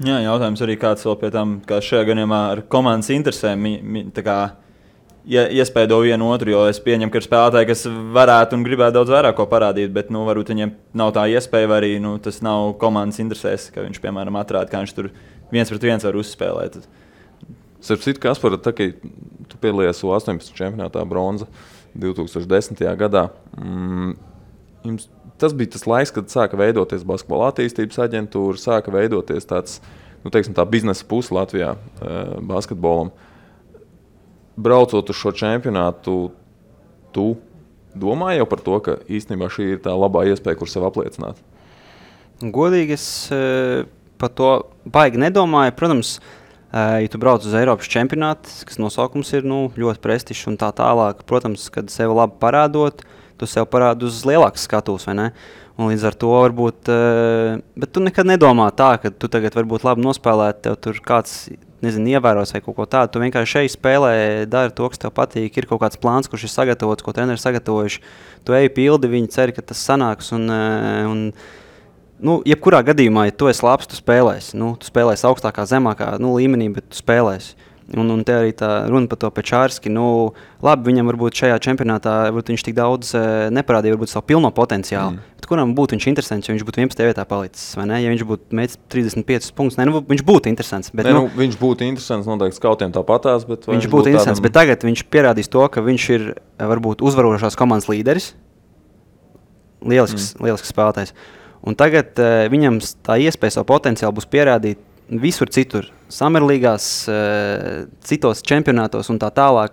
Jā, jautājums arī kāds vēl pie tam, kā šajā gadījumā ar komandas interesēm, iespēdo vienu otru, jo es pieņemu, ka ir spēlētāji, kas varētu un gribētu daudz vairāk ko parādīt, bet varbūt viņiem nav tā iespēja, vai arī tas nav komandas interesēs, ka viņš, piemēram, atrāda, kā viņš tur 1-1 var uzspēlēt. Starp citu, Kaspar, tā kā tu piedalījies U18 čempionātā bronza 2010. gadā, tas bija tas laiks, kad sāka veidoties basketbola attīstības aģentūra, sāka veidoties tāds, tā biznesa puse Latvijā basketbolam. Braucot uz šo čempionātu, tu domāji jau par to, ka īstenībā šī ir tā labā iespēja, kur sev apliecināt? Godīgi es par to baigi nedomāju. Protams, ja tu brauc uz Eiropas čempionātu, kas nosaukums ir ļoti prestižs un tā tālāk, protams, kad sev labi parādot, tu sev parādi uz lielākas skatuves, vai ne? Un līdz ar to varbūt, bet tu nekad nedomā tā, ka tu tagad varbūt labi nospēlēt, tev tur kāds, ievēros vai kaut ko tādu. Tu vienkārši šeit spēlē, dari to, kas tev patīk, ir kaut kāds plāns, kurš ir sagatavots, ko treneri sagatavojuši. Tu ej pildi, viņi cer, ka tas sanāks un jebkurā gadījumā, ja tu esi labs, tu spēlēsi. Tu spēlēsi augstākā, zemākā līmenī, bet tu spēlēsi. Un te arī tā runa par to Pečārski. Labi, viņam varbūt šajā čempionātā viņš tik daudz neparādīja varbūt savu pilno potenciālu. Bet kuram būtu viņš interesants, ja viņš būtu 11. vietā palicis, vai ne? Ja viņš būtu mēģis 35 punktus, viņš būtu interesants. Bet, viņš būtu interesants noteikti skautiem tāpatās, bet viņš būtu interesants, bet tagad viņš pierādīs to, ka viņš ir varbūt uzvarošās komandas līderis. Lielisks spēlētājs. Un tagad viņam tā iespēja savu potenciālu būs pierādīt visur citur, Summerlīgās, citos čempionātos un tā tālāk.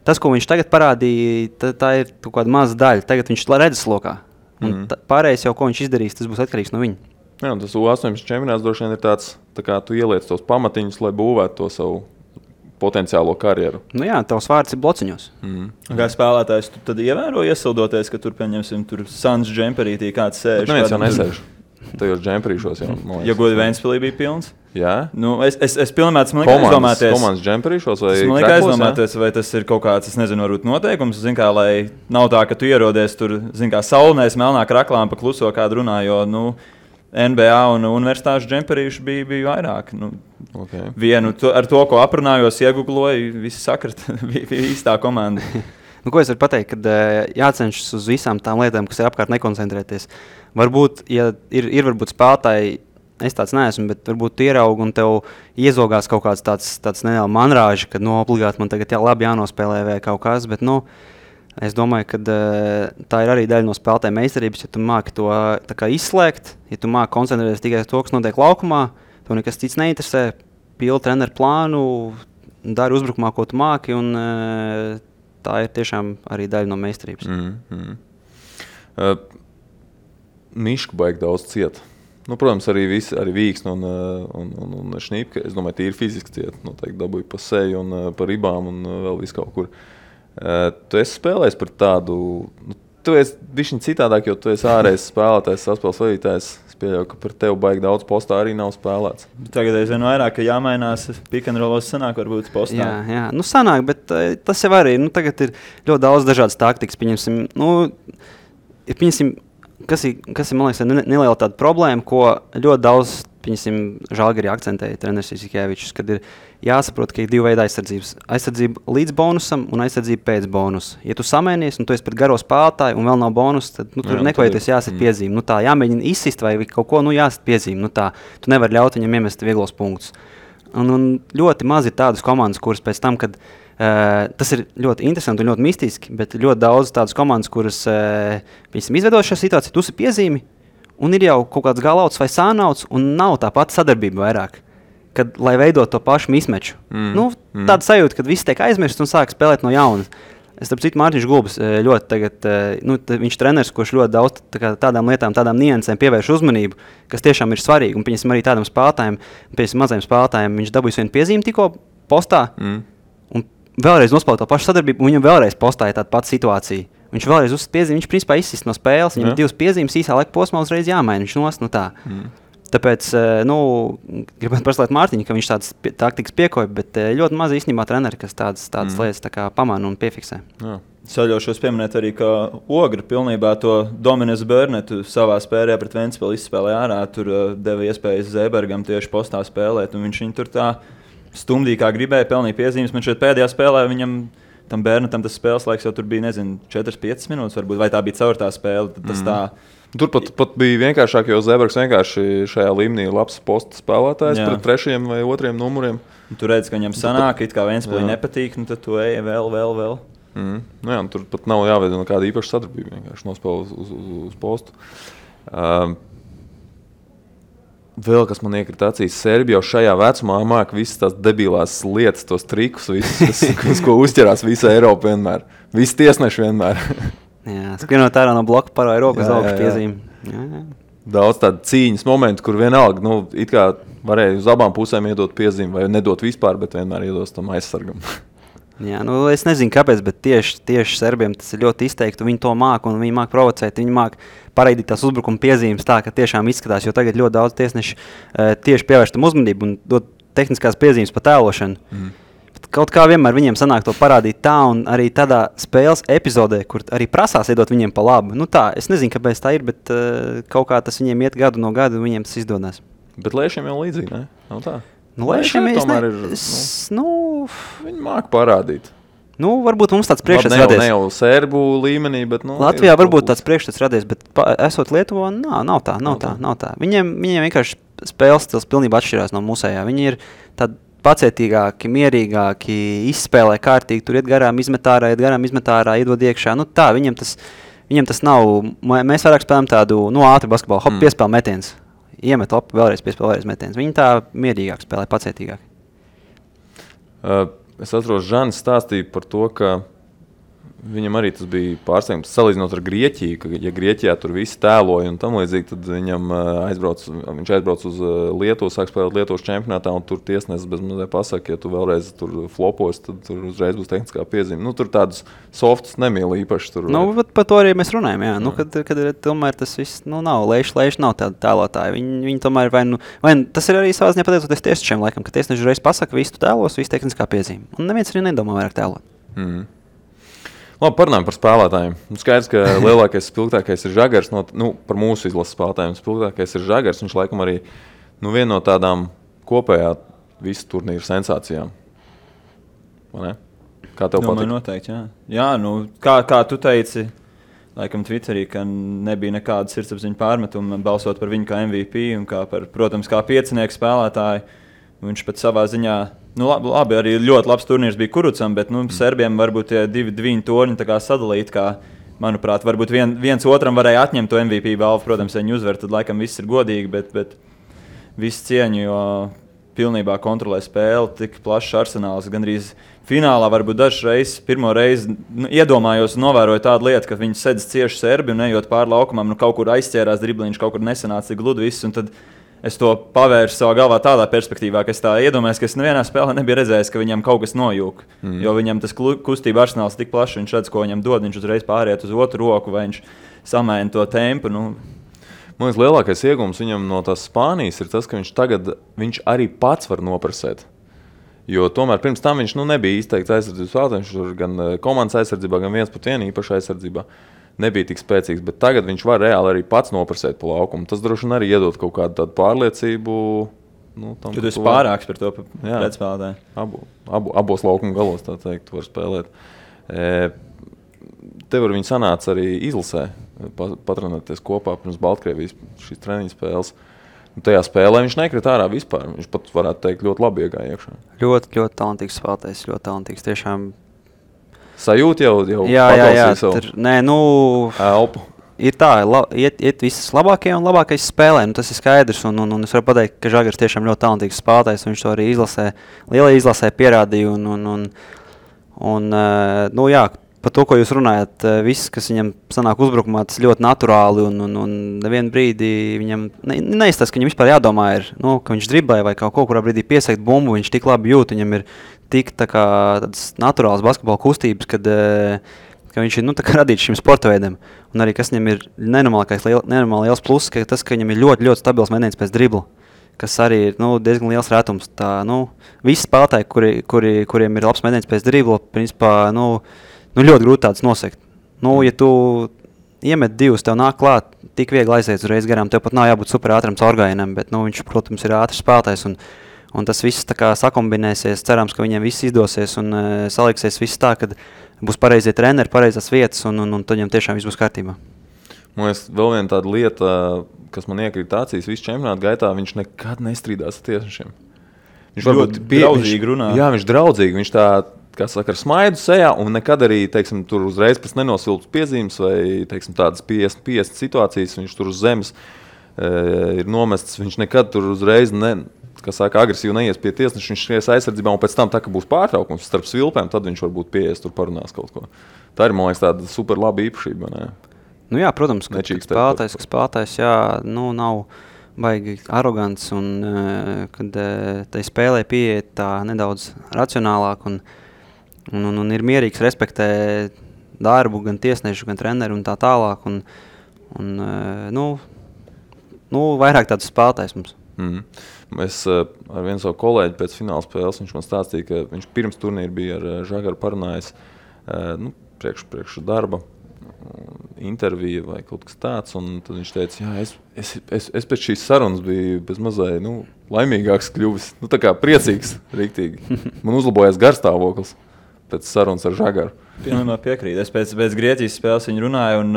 Tas, ko viņš tagad parādīja, tā ir kaut kāda maza daļa. Tagad viņš redzeslokā. Pārējais jau, ko viņš izdarīs, tas būs atkarīgs no viņa. Jā, un tas U18 čempionāts droši vien ir tāds, tā kā tu ieliec tos pamatiņus, lai būvētu to savu potenciālo karjeru. Jā, tavs vārds ir blociņos. Kā spēlētājs, tu tad ievēro iesildoties, ka tur, pieņemsim, tur Suns džemperītī kāds sēž? Bet neviens jau nesēž. Tajos džemperīšos jau, man liekas. Ja godi Ventspilī bija pilns? Jā. Es pilnībā esmu aizdomāties. Komandas džemperīšos vai kreklos? Es aizdomāties, vai tas ir kaut kāds, varbūt noteikums, kā, lai nav tā, ka tu ierodies tur, kā saulnēs melnā kraklām pa kluso kādu runā, jo, NBA un universitāšu džemperīšu bija vairāk. Okay. Vienu ar to, ko aprunājos, iegugloju, visi sakrat, bija īstā komanda. Ko es varu pateikt, kad jācenšas uz visām tām lietām, kas ir apkārt, nekoncentrēties. Varbūt, ja ir varbūt spēlētāji, es tāds neesmu, bet varbūt tu ieraugi un tev iezogās kaut kāds tāds neliela manrāži, kad obligāti man tagad labi jānospēlē vai kaut kas, bet es domāju, ka tā ir arī daļa no spēlētāja meistarības, ja tu māki to tā kā izslēgt, ja tu māki koncentrēties tikai uz to, kas notiek laukumā, tev nekas cits neinteresē, pildi treneru plānu, dari uzbrukumā, ko tu māki, un tā ir tiešām arī daļa no meistarības. Mišku baigi daudz ciet. Protams, arī Vīksne un Šnīpke, es domāju, tīri fiziski ciet. Noteikti dabūja pa seju un pa ribām un vēl visu kaut kur. Tu esi spēlējis par tādu, tu esi bišķiņ citādāk, jo tu esi ārējais spēlētājs, saspēles vadītājs. Es pieļauju, ka par tevi baigi daudz postā arī nav spēlēts. Tagad es vien vairāk, ka jāmainās pick-and-rollos sanāk varbūt postā. Jā, sanāk, bet tas jau arī, tagad ir ļoti daudz dažādas taktikas, pieņemsim, kas ir, man liekas, neliela tāda problēma, ko ļoti daudz, Žalgirī akcentēja treneris Isikēvičs, kad ir jāsaprot, ka ir divi veidi aizsardzības. Aizsardzība līdz bonusam un aizsardzība pēc bonusa. Ja tu samēnies un tu esi pret garo spēlētāju un vēl nav bonus, tad tur nekvajoties jāsit piezīme. Tā jāmēģina izsist vai kaut ko, jāsit piezīme. Tu nevari ļaut viņam iemest vieglos punktus. Un ļoti maz ir tādas komandas, kuras pēc tam, kad tas ir ļoti interesanti un ļoti mistiski, bet ļoti daudz tādas komandas, kuras izveido šo situāciju, tu esi piezīmi, un ir jau kaut kāds galauts vai sānauts, un nav tā pati sadarbība vairāk, kad, lai veidot to pašu mismeču. Tāda sajūta, kad viss tiek aizmirsts un sāk spēlēt no jauna. Es starp citu Mārtiņš Gulbis ļoti tagad, viņš treneris, kurš ļoti daudz tādām lietām, tādām niansēm pievērš uzmanību, kas tiešām ir svarīgi, un pieņemsim arī tādam spēlētājiem, mazajiem spēlētājiem, viņš dabūjis vienu piezīmi tikko postā, un vēlreiz nospēlēt to pašu sadarbību, un viņam vēlreiz postāja tāda pati situācija. Viņš vēlreiz uzsist piezīmi, viņš principā izsist no spēles, viņam ir divas piezīmes, īsā laika posmā uzreiz jāmaina, viņš nost, tā. Tāpēc, gribētu prasīt Mārtiņu, ka viņš tādas taktikas piekoja, bet ļoti maz īstenībā treneri, kas tādas lietas tā kā pamana un piefiksē. Jā. Saļaušos pieminēt arī, ka Ogra pilnībā to Dominis Bērnetu savā spēlē pret Ventspili izspēlēja ārā, tur deva iespējas Zēbergam tieši postā spēlēt, un viņš viņu tur tā stumdīja, kā gribēja, pelnīja piezīmes, man šeit pēdējā spēlē viņam tam Bērnetam tas spēles laiks jau tur bija, 4-5 minūtes varbūt, vai tā bija caur tā spēle, tas tā. Tur pat bija vienkāršāk, jo Zēbergs vienkārši šajā līmenī ir labs posta spēlētājs pret 3. vai 2. numuriem. Tu redzi, ka viņam sanāk, it kā Ventspilī nepatīk, tad tu ej vēl. Tur pat nav jāveido nekāda īpaša sadarbība, vienkārši nospēlē uz postu. Vēl kas man iekrita acīs, Serbi jau šajā vecumā māk visas tās debilās lietas, tos trikus, visus, ko uzķerās visa Eiropa vienmēr. Visi tiesneši vienmēr. Jā, skrienot ārā no bloka paroja rokas augšu piezīme. Jā. Daudz tādu cīņas momentu, kur vienalga, it kā varēja uz abām pusēm iedot piezīmi, vai nedot vispār, bet vienmēr iedos tam aizsargam. Jā, es nezinu, kāpēc, bet tieši serbiem tas ir ļoti izteikti. Viņi to māca, un viņi māca provocēt. Viņi māca paraidīt tās uzbrukuma piezīmes tā, ka tiešām izskatās, jo tagad ļoti daudz tiesneši tieši pievērš tam uzmanību un dod tehniskās piezīmes pa tēlošanu. Kaut kā vienmēr viņiem sanāk to parādīt tā, un arī tādā spēles epizodē, kur arī prasās iedot viņiem pa labu. Tā, es nezinu, kāpēc tā ir, bet kaut kā tas viņiem iet gadu no gada, un viņiem tas izdodas. Bet Lēšiem jau līdzīgi, ne? Nav tā? Lēšiem tomēr ir, viņi māca parādīt. Varbūt mums tāds priekšstats radies. Ne jau sērbu līmenī, bet... Latvijā varbūt tāds priekšstats radies, bet esot Lietuvā, nav tā. Viņiem vienkārši spēles stils pilnībā atšķirās no mūsējā. Viņi ir tādi pacietīgāki, mierīgāki, izspēlē kārtīgi, tur iet garām izmetārā, iedod iekšā. Tā, viņiem tas nav, mēs vairāk spēlējam tādu, ātru basketbolu, piespēl metiens. Iemet lapu, vēlreiz piespēl, vēlreiz metiens. Viņi tā mierīgāk spēlē, pacietīgāk. Es atceros, Žanis stāstīja par to, ka viņam arī tas bija pārsteigums, salīdzinot ar Grieķiju, ka, ja Grieķijā tur visi tēloja un tam līdzīgi, tad viņš aizbrauc uz Lietuvu, sāk spēlēt Lietuvas čempionātā, un tur tiesnesis bez mazliet pasaka, ja tu vēlreiz tur flopos, tad tur uzreiz būs tehniskā piezīme. Tur tādus softus nemīl īpaši. Tur, par to arī mēs runājam, jā. Kad tomēr tas viss, nav, Leiši nav tādi tēlotāji. Viņi tomēr vai tas ir arī savā ziņā pateicoties tiesnešiem, laikam, ka tiesneši uzreiz pasaka, visu tēlos, visu tehniskā piezīme. Un neviens arī nedomā vairāk tēlot. Labi, parunājam par spēlētājiem. Skaidrs, ka lielākais spilgtākais ir Žagars. Par mūsu izlases spēlētājiem spilgtākais ir Žagars. Viņš laikam arī viena no tādām kopējā visu turnīru sensācijām. Vai ne? Kā tev patīk? Noteikti, jā. Kā tu teici, laikam Twitterī, ka nebija nekāda sirdsapziņa pārmetuma balsot par viņu kā MVP un protams, kā piecinieku spēlētāju. Viņš pat savā ziņā, labi, arī ļoti labs turnīrs bija Kurucam, bet serbiem varbūt tie divi torņi tā kā sadalīti, kā, manuprāt, varbūt viens otram varēja atņemt to MVP balvu, protams, ja viņi uzver, tad laikam viss ir godīgi, bet viss cieņu, jo pilnībā kontrolē spēli, tik plašs arsenāls, gandrīz finālā varbūt dažreiz, pirmo reizi iedomājos un novēroju tādu lietu, ka viņi sedz cieši serbi un ejot pāri laukumam, kaut kur aizķērās dribliņš, kaut kur nesanāca tik gludi viss, un tad es to pavēršu savā galvā tādā perspektīvā, ka es tā iedomājos, ka es nevienā spēlē nebiju redzējis, ka viņam kaut kas nojūg. Jo viņam tas kustība arsenāls tik plašs, viņš redz, ko viņam dod, viņš uzreiz pāriet uz otru roku, vai viņš samēna to tempu. Man liekas, lielākais iegūms viņam no tās Spānijas ir tas, ka viņš arī pats var noprasēt. Jo tomēr pirms tam viņš nebija izteikts aizsardzības spēlētājs, viņš tur gan komandas aizsardzībā, gan viens pret vienu īpaši aizsardzībā. Nebija tik spēcīgs, bet tagad viņš var reāli arī pats noprasēt pa laukumu. Tas droši vien arī iedod kaut kādu tādu pārliecību. Tu esi pārāks par to pretspēlētāju. Abos laukuma galos, tā teikt, tu var spēlēt. Tev ar viņu sanāca arī izlasē, patrenēties kopā pirms Baltkrievijas šīs treniņu spēles. Tajā spēlē viņš nekrita ārā vispār. Viņš pat varētu teikt ļoti labi iegāja iekšā. Ļoti, ļoti talantīgs spēlētājs, ļoti talantīgs. Tiešām sajūta jau jā, elpu. Ir tā, iet visas labākie un labākais spēlē, tas ir skaidrs, un es varu pateikt, ka Žagars tiešām ļoti talantīgs spēlētājs, viņš to arī lielajā izlasē pierādīja, par to, ko jūs runājat, viss, kas viņam sanāk uzbrukumā, tas ļoti naturāli, un nevienu brīdi viņam neizstāsta, ka viņam vispār jādomā ir, ka viņš driblē vai kaut kurā brīdī piesakt bumbu, viņš tik labi jūt, viņam ir tik tādas naturālas basketbola kustības, ka viņš ir radīts šim sporta veidam. Un arī, kas viņam ir nenormāli liels pluss, ka tas, ka viņam ir ļoti, ļoti stabils metiens pēc dribla, kas arī ir diezgan liels rētums. Visi spēlētāji, kuriem ir labs metiens pēc dribla, principā, ļoti grūti tāds nosekt. Ja tu iemet divus, tev nāk klāt, tik viegli aiziet uzreiz garām, tev pat nav jābūt super ātram caurgājienam, bet viņš, protams, ir ātrs spēlētājs. Un tas viss tā kā sakombinēsies, cerams, ka viņiem viss izdosies un saliksies viss tā, kad būs pareizie treneri, pareizās vietas un tad viņam tiešām viss būs kārtībā. Man liekas, vēl viena tāda lieta, kas man iekrīt acīs visu čempionātu gaitā, viņš nekad nestrīdās ar tiesnešiem. Viņš ļoti draudzīgi runā. Jā, viņš draudzīgi, viņš tā, kā saka, ar smaidu sejā un nekad arī, teiksim, tur uzreiz pēc nenosilpas piezīmes vai, teiksim, tādas 50 situācijas, viņš tur uz zemes ir nomests, viņš nekad tur uzreiz agresīvi neies pie tiesneša, viņš skries aizsardzībā, un pēc tam, tā, ka būs pārtraukums starp svilpēm, tad viņš varbūt pieies tur parunās kaut ko. Tā ir, man liekas, tāda super laba īpašība, ne? Nu jā, protams, ka spēlētājs, jā, nu nav baigi arogants, un kad tai spēlē pieiet tā nedaudz racionālāk, un ir mierīgs, respektē darbu, gan tiesnešu, gan treneru un tā tālāk, un vairāk tāds spēlētājs mums. Es ar vienu savu kolēģi pēc fināla spēles, viņš man stāstīja, ka viņš pirms turnīra bija ar Žagaru parunājis priekš darba interviju vai kaut kas tāds, un tad viņš teica, jā, es pēc šīs sarunas biju bez mazai, laimīgāks kļuvis, tā kā priecīgs, riktīgi. Man uzlabojās garstāvoklis pēc sarunas ar Žagaru. Pilnībā piekrīt. Es pēc Grieķijas spēles viņu runāju, un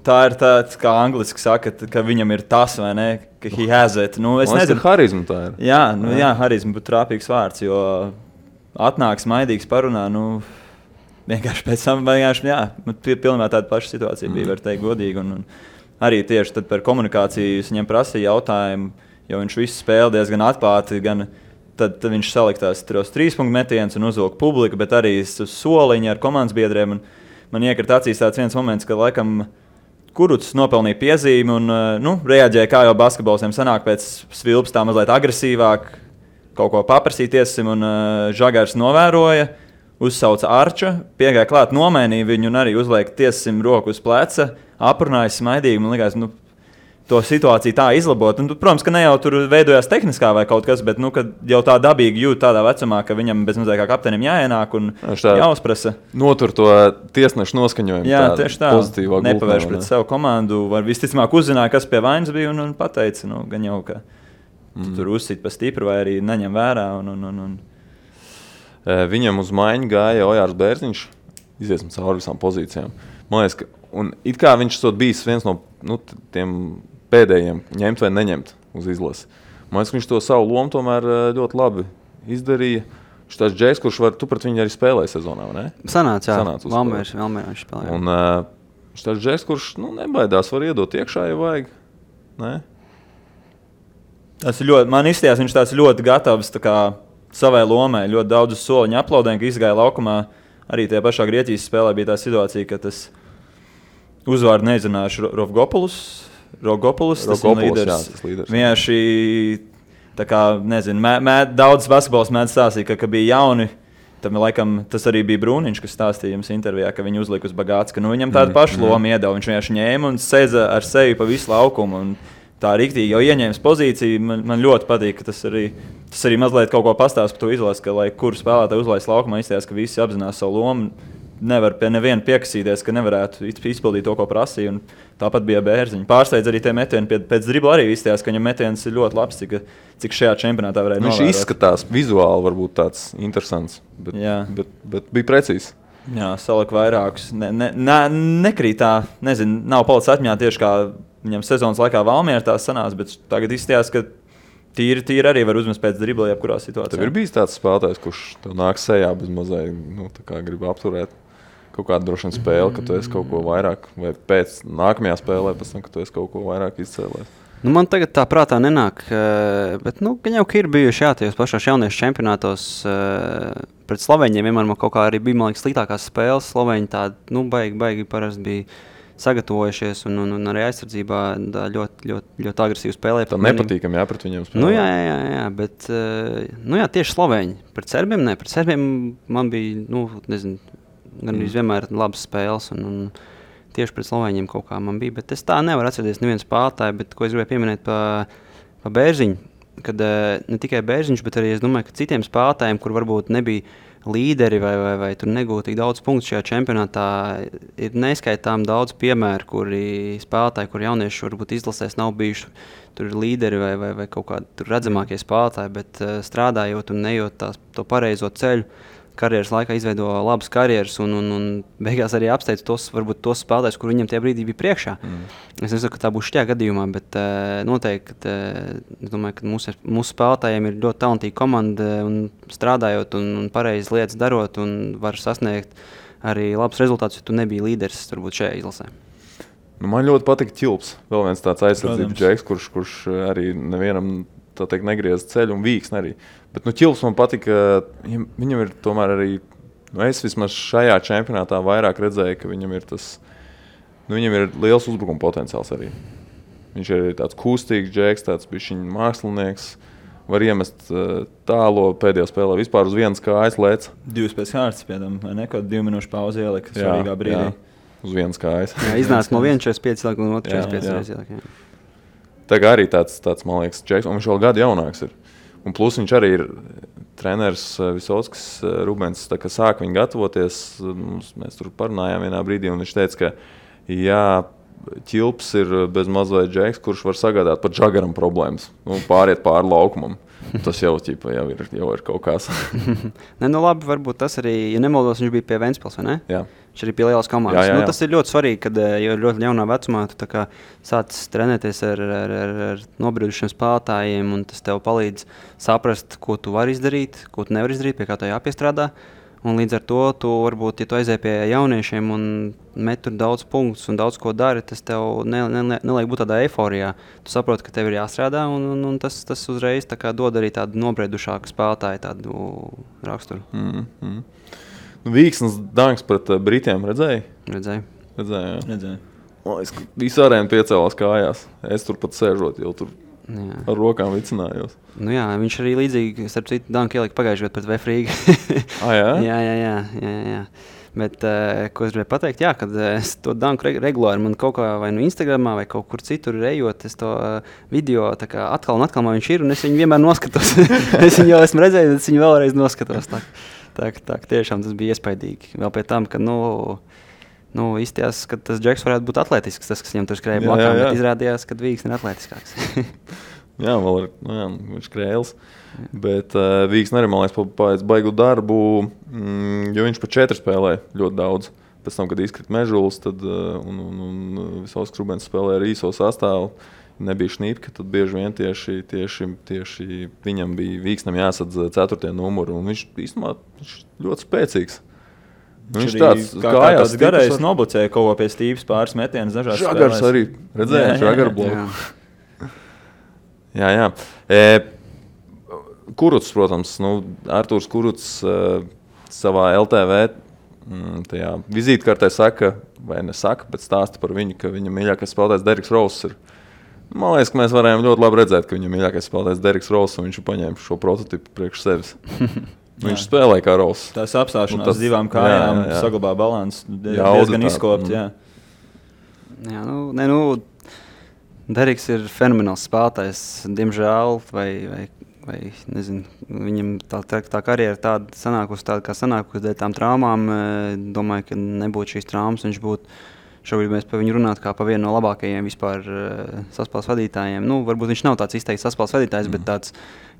tā ir tāds, kā angliski saka, ka viņam ir tas, vai ne, ka he has it. Es nezinu. Harizma tā ir. Jā, harizma būtu trāpīgs vārds, jo atnāks maidīgs parunā, vienkārši pēc tam, pilnībā tāda paša situācija bija, var teikt godīgi. Un arī tieši tad par komunikāciju es viņam prasīju jautājumu, jo viņš visu spēli diezgan atklāti, gan tad viņš saliktās tos 3-punktu metienus un uzvilka publiku, bet arī soliņi ar komandas biedriem. Man iekrita acīs tāds viens moments, ka laikam Kurucs nopelnīja piezīmi un reaģēja, kā jau basketboliem sanāk pēc svilpas tā mazliet agresīvāk, kaut ko paprasīt tiesim, un Žagars novēroja, uzsauca Arča, piegāja klāt, nomainīja viņu un arī uzliek tiesim roku uz pleca, aprunāja smaidīgi, man likās, to situāciju tā izlabot. Un, protams, ka ne jau tur veidojās tehniskā vai kaut kas, bet kad jau tā dabīgi jūt tādā vecumā, ka viņam bez mazliet kā kapteinim jāienāk un jāuzprasa. Notur to tiesnešu noskaņojumu. Jā, tieši tā. Nepavērš pret savu komandu. Var visticamāk uzzināja, kas pie vainas bija un pateica, gan jau, ka tur uzsit pa stipru vai arī neņem vērā. Viņam uz maiņu gāja Ojārs Bērziņš. Iziesim cauri visām pozīcijām. Man liekas, un it kā viņš esot bijis viens no tiem pēdējiem ņemt vai neņemt uz izlasi. Man liekas, ka viņš to savu lomu tomēr ļoti labi izdarīja. Viņš tāds džeks, kurš tu pret viņu arī spēlēja sezonā, vai ne? Sanāca, jā. Valmērā viņš spēlēja. Un viņš tāds džeks, kurš nebaidās, var iedot iekšā, ja vajag. Ne? Tas ir ļoti, man izstījās, viņš tāds ļoti gatavs savai lomai. Ļoti daudz soliņu aplaudēm, ka izgāja laukumā. Arī tajā pašā Grieķijas spēlē bija tā situācija, ka tas uzvārdu nezināšu Rogopoulos, tas ir līderis. Vienkārši, daudz basketbols mēdz stāstīt, ka bija jauni. Tam, laikam, tas arī bija Brūniņš, kas stāstīja jums intervijā, ka viņu uzlika uz Bagāts, ka viņam tādu pašu lomu iedeva. Viņš vienkārši ņēma un sēdza ar sevi pa visu laukumu. Un tā riktīgi jau ieņēmis pozīciju. Man ļoti patīk, ka tas arī mazliet kaut ko pastāst par to izlasi, ka, lai kuru spēlētāju uzlaist laukumā, izstājās, ka visi apzinās savu lomu. Nevar pie neviena piekasīties, ka nevarētu izpildīt to, ko prasīja. Un tāpat bija Bērziņa. Pārsteidz arī tie metieni pēc dribla arī izstājās, ka viņam metiens ir ļoti labs, cik šajā čempionātā varēja novērot. Viņš izskatās vizuāli varbūt tāds interesants, bet bija precīzs. Jā, salika vairākus. Nekrīt tā, nav palicis atmiņā tieši kā viņam sezonas laikā Valmierā tās sanās, bet tagad izstājās, ka tīri arī var uzmest pēc dribla jebkurā situācijā. Tev ir bijis tāds spēlētājs, kurš tev nāk sejā bez mazai, grib apturēt kaut kādu droši vien spēli, ka tu esi kaut ko vairāk, vai pēc nākamajā spēlē, pēc tam, ka tu esi kaut ko vairāk izcēlējis? Man tagad tā prātā nenāk, bet gan jau, ka ir bijuši tajos pašos jauniešu čempionātos pret Slovēņiem. Vienmēr man kaut kā arī bija, man liekas, sliktākās spēles. Slovēņi tādi, baigi parasti bija sagatavojušies un arī aizsardzībā ļoti, ļoti, ļoti agresīvi spēlēja. Tā nepatīkami, pret viņiem spēlēt. Jā, bet, tieši Slovēņi. Pret Serbiem man bija, gan arī vienmēr labas spēles un tieši pret Slovēņiem kaut kā man bija, bet es tā nevaru atcerēties nevienu spēlētāju, bet ko es gribēju pieminēt pa Bērziņu, kad ne tikai Bērziņš, bet arī es domāju, ka citiem spēlētājiem, kur varbūt nebija līderi vai tur negūtu tik daudz punktu šajā čempionātā, ir neskaitām daudz piemēru, kuri spēlētāji, kur jaunieši varbūt izlasēs nav bijuši tur līderi vai kaut kādi redzamākie spēlētāji, bet strādājot un nejot to pareizo ceļu, karjeras laikā izveido labas karjeras un beigās arī apsteidz tos spēlētājus, kur viņam tie brīdī bija priekšā. Es nesaku, ka tā būs šajā gadījumā, bet noteikti, es domāju, ka mūsu spēlētājiem ir ļoti talantīga komanda un strādājot un pareizi lietas darot un var sasniegt arī labus rezultātus, ja tu nebija līderis turbūt šajā izlasē. Man ļoti patika Ķilps. Vēl viens tāds aizsardzības džeks, kurš arī nevienam tā teikt negriez ceļu un Vīksni arī. Bet Ķilps man patika, viņam ir tomēr arī, es vismaz šajā čempionātā vairāk redzēju, ka viņam ir tas, viņam ir liels uzbrukuma potenciāls arī. Viņš ir tāds kustīgs džeks, tāds bišķiņ mākslinieks, var iemest tālo pēdējā spēlē, vispār uz vienas kājas lēc. 2 pēc kārtas, piedam, vai ne, kaut 2 minūšu pauzi ielika svarīgā brīdī. Jā, uz vienas kājas. Jā, iznāca no 1.45 ielika un 2.45 ielika. Tā kā arī tāds, man liekas, džeks, un viņš vēl gadu jaunāks ir. Un plus viņš arī ir treneris Visotskis Rubens, tā kā sāk viņu gatavoties, mēs tur parunājām vienā brīdī, un viņš teica, ka jā, Ķilps ir bez mazliet džeks, kurš var sagādāt pat Žagaram problēmas, pāriet pāri laukumam. Tas jau ir kaut kas. Ne, nu labi, varbūt tas arī, ja nemaldos, viņš bija pie Ventspils, vai ne? Jā. Viņš arī pie lielas komandas. Jā. Tas ir ļoti svarīgi, kad jau ļoti jaunā vecumā tu tā kā sācis trenēties ar nobriedušiem spēlētājiem, un tas tev palīdz saprast, ko tu vari izdarīt, ko tu nevari izdarīt, pie kā tev jāpiestrādā. Un līdz ar to, tu varbūt, ja tu aizēji pie jauniešiem un met tur daudz punktus un daudz ko dari, tas tev neliek būt tādā eiforijā. Tu saproti, ka tev ir jāstrādā, un tas uzreiz tā kā dod arī tādu nobriedušāku spēlētāju tādu raksturu. Vīksnes danks pret Britiem redzēji? Redzēju. Redzēju. Es visu arēnu piecēlās kājās. Es tur pat sēžot, jau tur ar rokām vicinājos. Nu jā, viņš arī līdzīgi, starp citu, danku ielika pagājušajā gadā pret Vefrīgu. Jā? Jā. Bet, ko es gribēju pateikt, jā, kad es to danku regulāri man kaut kā vai no Instagramā vai kaut kur citur ejot, es to video tā kā atkal un atkal man viņš ir, un es viņu vienmēr noskatos. Es viņu jau esmu redzējis, es viņu vēlreiz noskatos. Tā tiešām tas bija iespaidīgi. Vēl pie tam, ka, izstījās, ka tas džeks varētu būt atletisks, tas, kas viņam tur skrēja blakām, bet izrādījās, ka Vīksni ir atletiskāks. Jā, vēl ir, viņš krēls. Bet Vīksni arī, man liekas, pēc baigu darbu, jo viņš pa 4 spēlēja ļoti daudz. Pēc tam, kad izkrita Mežulis, tad un Visotskis Rubens spēlēja ar īso sastāvu, nebija Šnīpka, tad bieži vien tieši viņam bija Vīksnam jāsadz 4. numuru, un viņš īstenībā ļoti spēcīgs. Viņš tāds kājās garais noblucēja kaut ko pie Stīvas pāris metienas dažās spēlēs. Žagars arī, redzēja, Žagaru bloku. Jā. Kurucs, protams, Artūrs Kurucs savā LTV tajā vizītkartē saka, vai nesaka, bet stāsta par viņu, ka viņa mīļākais spēlētājs Deriks Rauss ir. Man liekas, ka mēs varējām ļoti labi redzēt, ka viņa mīļākais spēlētājs Deriks Rauss, un viņš paņēma šo prototipu priekš sevis. Viņš spēlēja kā Rauss. Tās apstāšanās 2 kājām saglabā balansu diezgan izkopt. Jā, Deriks ir fenomenāls spēlētājs. Diemžēl, vai nezinu, viņam tā karjera tāda sanākusi, kā sanākusi dēļ tām traumām. Domāju, ka nebūtu šīs traumas, viņš būtu šobrīd mēs par viņu runāt kā par vienu no labākajiem vispār saspēles vadītājiem. Varbūt viņš nav tāds izteikts saspēles vadītājs, bet tāds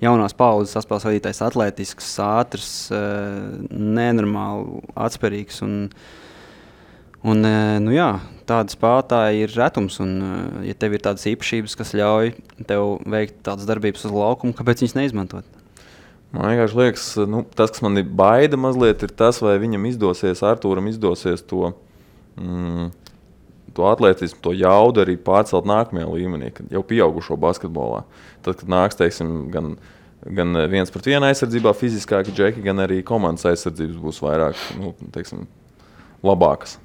jaunās paudzes saspēles vadītājs, atletisks, ātrs, nenormāli atspērīgs. Jā, tādi spēlētāji ir retums, un ja tev ir tādas īpašības, kas ļauj tev veikt tādas darbības uz laukumu, kāpēc viņas neizmantot? Man vienkārši liekas, tas, kas man ir baida mazliet, ir tas, vai viņam izdosies, Artūram izdosies to atletismu, to jaudu arī pārcelt nākamajā līmenī, kad jau pieaugušo basketbolā. Tad, kad nāks, teiksim, gan 1-pret-1 aizsardzībā fiziskāki džeki, gan arī komandas aizsardzības būs vairāk, labākas.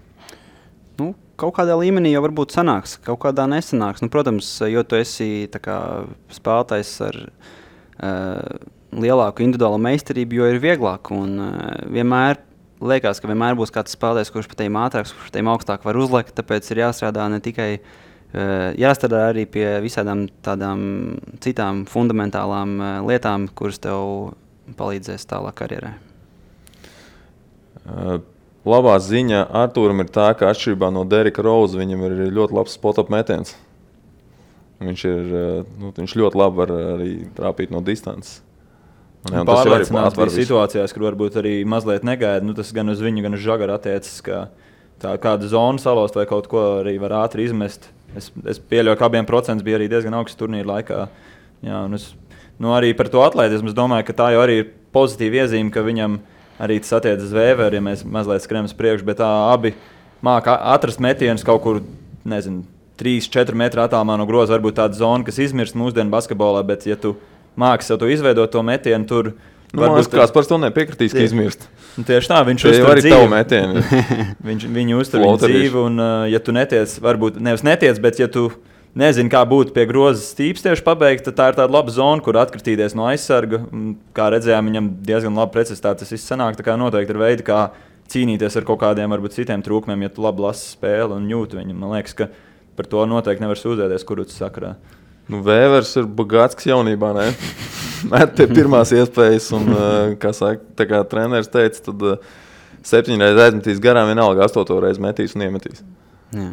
Kaut kādā līmenī jau varbūt sanāks, kaut kādā nesanāks. Protams, jo tu esi tā kā spēlētājs ar lielāku individuālu meistarību, jo ir vieglāk. Un vienmēr liekas, ka vienmēr būs kāds spēlētājs, kurš pat tiem ātrāks, kurš tiem augstāk var uzlikt, tāpēc ir jāstrādā ne tikai, jāstrādā arī pie visādām tādām citām fundamentālām lietām, kuras tev palīdzēs tālāk karjerē. Labā ziņa Artūram ir tā, ka atšķirībā no Derika Rausa viņam ir ļoti labs spot-up metiens. Viņš ļoti labi var arī trāpīt no distances. Pārliecināts bija situācijās, kur varbūt arī mazliet negaida. Tas gan uz viņu, gan uz Žagaru attiecas, ka tā kāda zona salost vai kaut ko arī var ātri izmest. Es pieļauju, ka abiem procents bija arī diezgan augsts turnīra laikā. Jā, un arī par to atletismu es domāju, ka tā jau arī ir pozitīva iezīme, ka viņam arī tas attiecas uz Vēveru, ja mēs mazliet skrienam uz priekšu, bet abi māca atrast metienus kaut kur nezinu, 3-4 metru attālumā no groza varbūt tāda zona, kas izmirst mūsdienu basketbolā, bet ja tu māki sev to izveidot to metienu, tur varbūt kāds par to nepiekritīs, ka izmirst. Tieši tā, viņš uztur arī tavu metienu. Viņu uztur viņu dzīvi, un ja tu netiec, varbūt nevis netiec, bet ja tu nezini, kā būtu pie groza stīps tieši pabeigt, tad tā ir tāda laba zona, kur atkritīties no aizsarga. Kā redzējām, viņam diezgan labi precizitāte tas viss sanāk, tā kā noteikti ir veidi, kā cīnīties ar kaut kādiem varbūt citiem trūkumiem, ja tu labi lasi spēli un jūti viņu. Man liekas, ka par to noteikti nevar sūdzēties Kurucs sakarā. Nu, Vēvers ir bagāts jaunībā, ne? Met pie pirmās iespējas, un, kā saka, tā kā treneris teica, tad 7 reizes aizmetīs garām, vienalga 8 reizi metīs un iemetīs. Jā.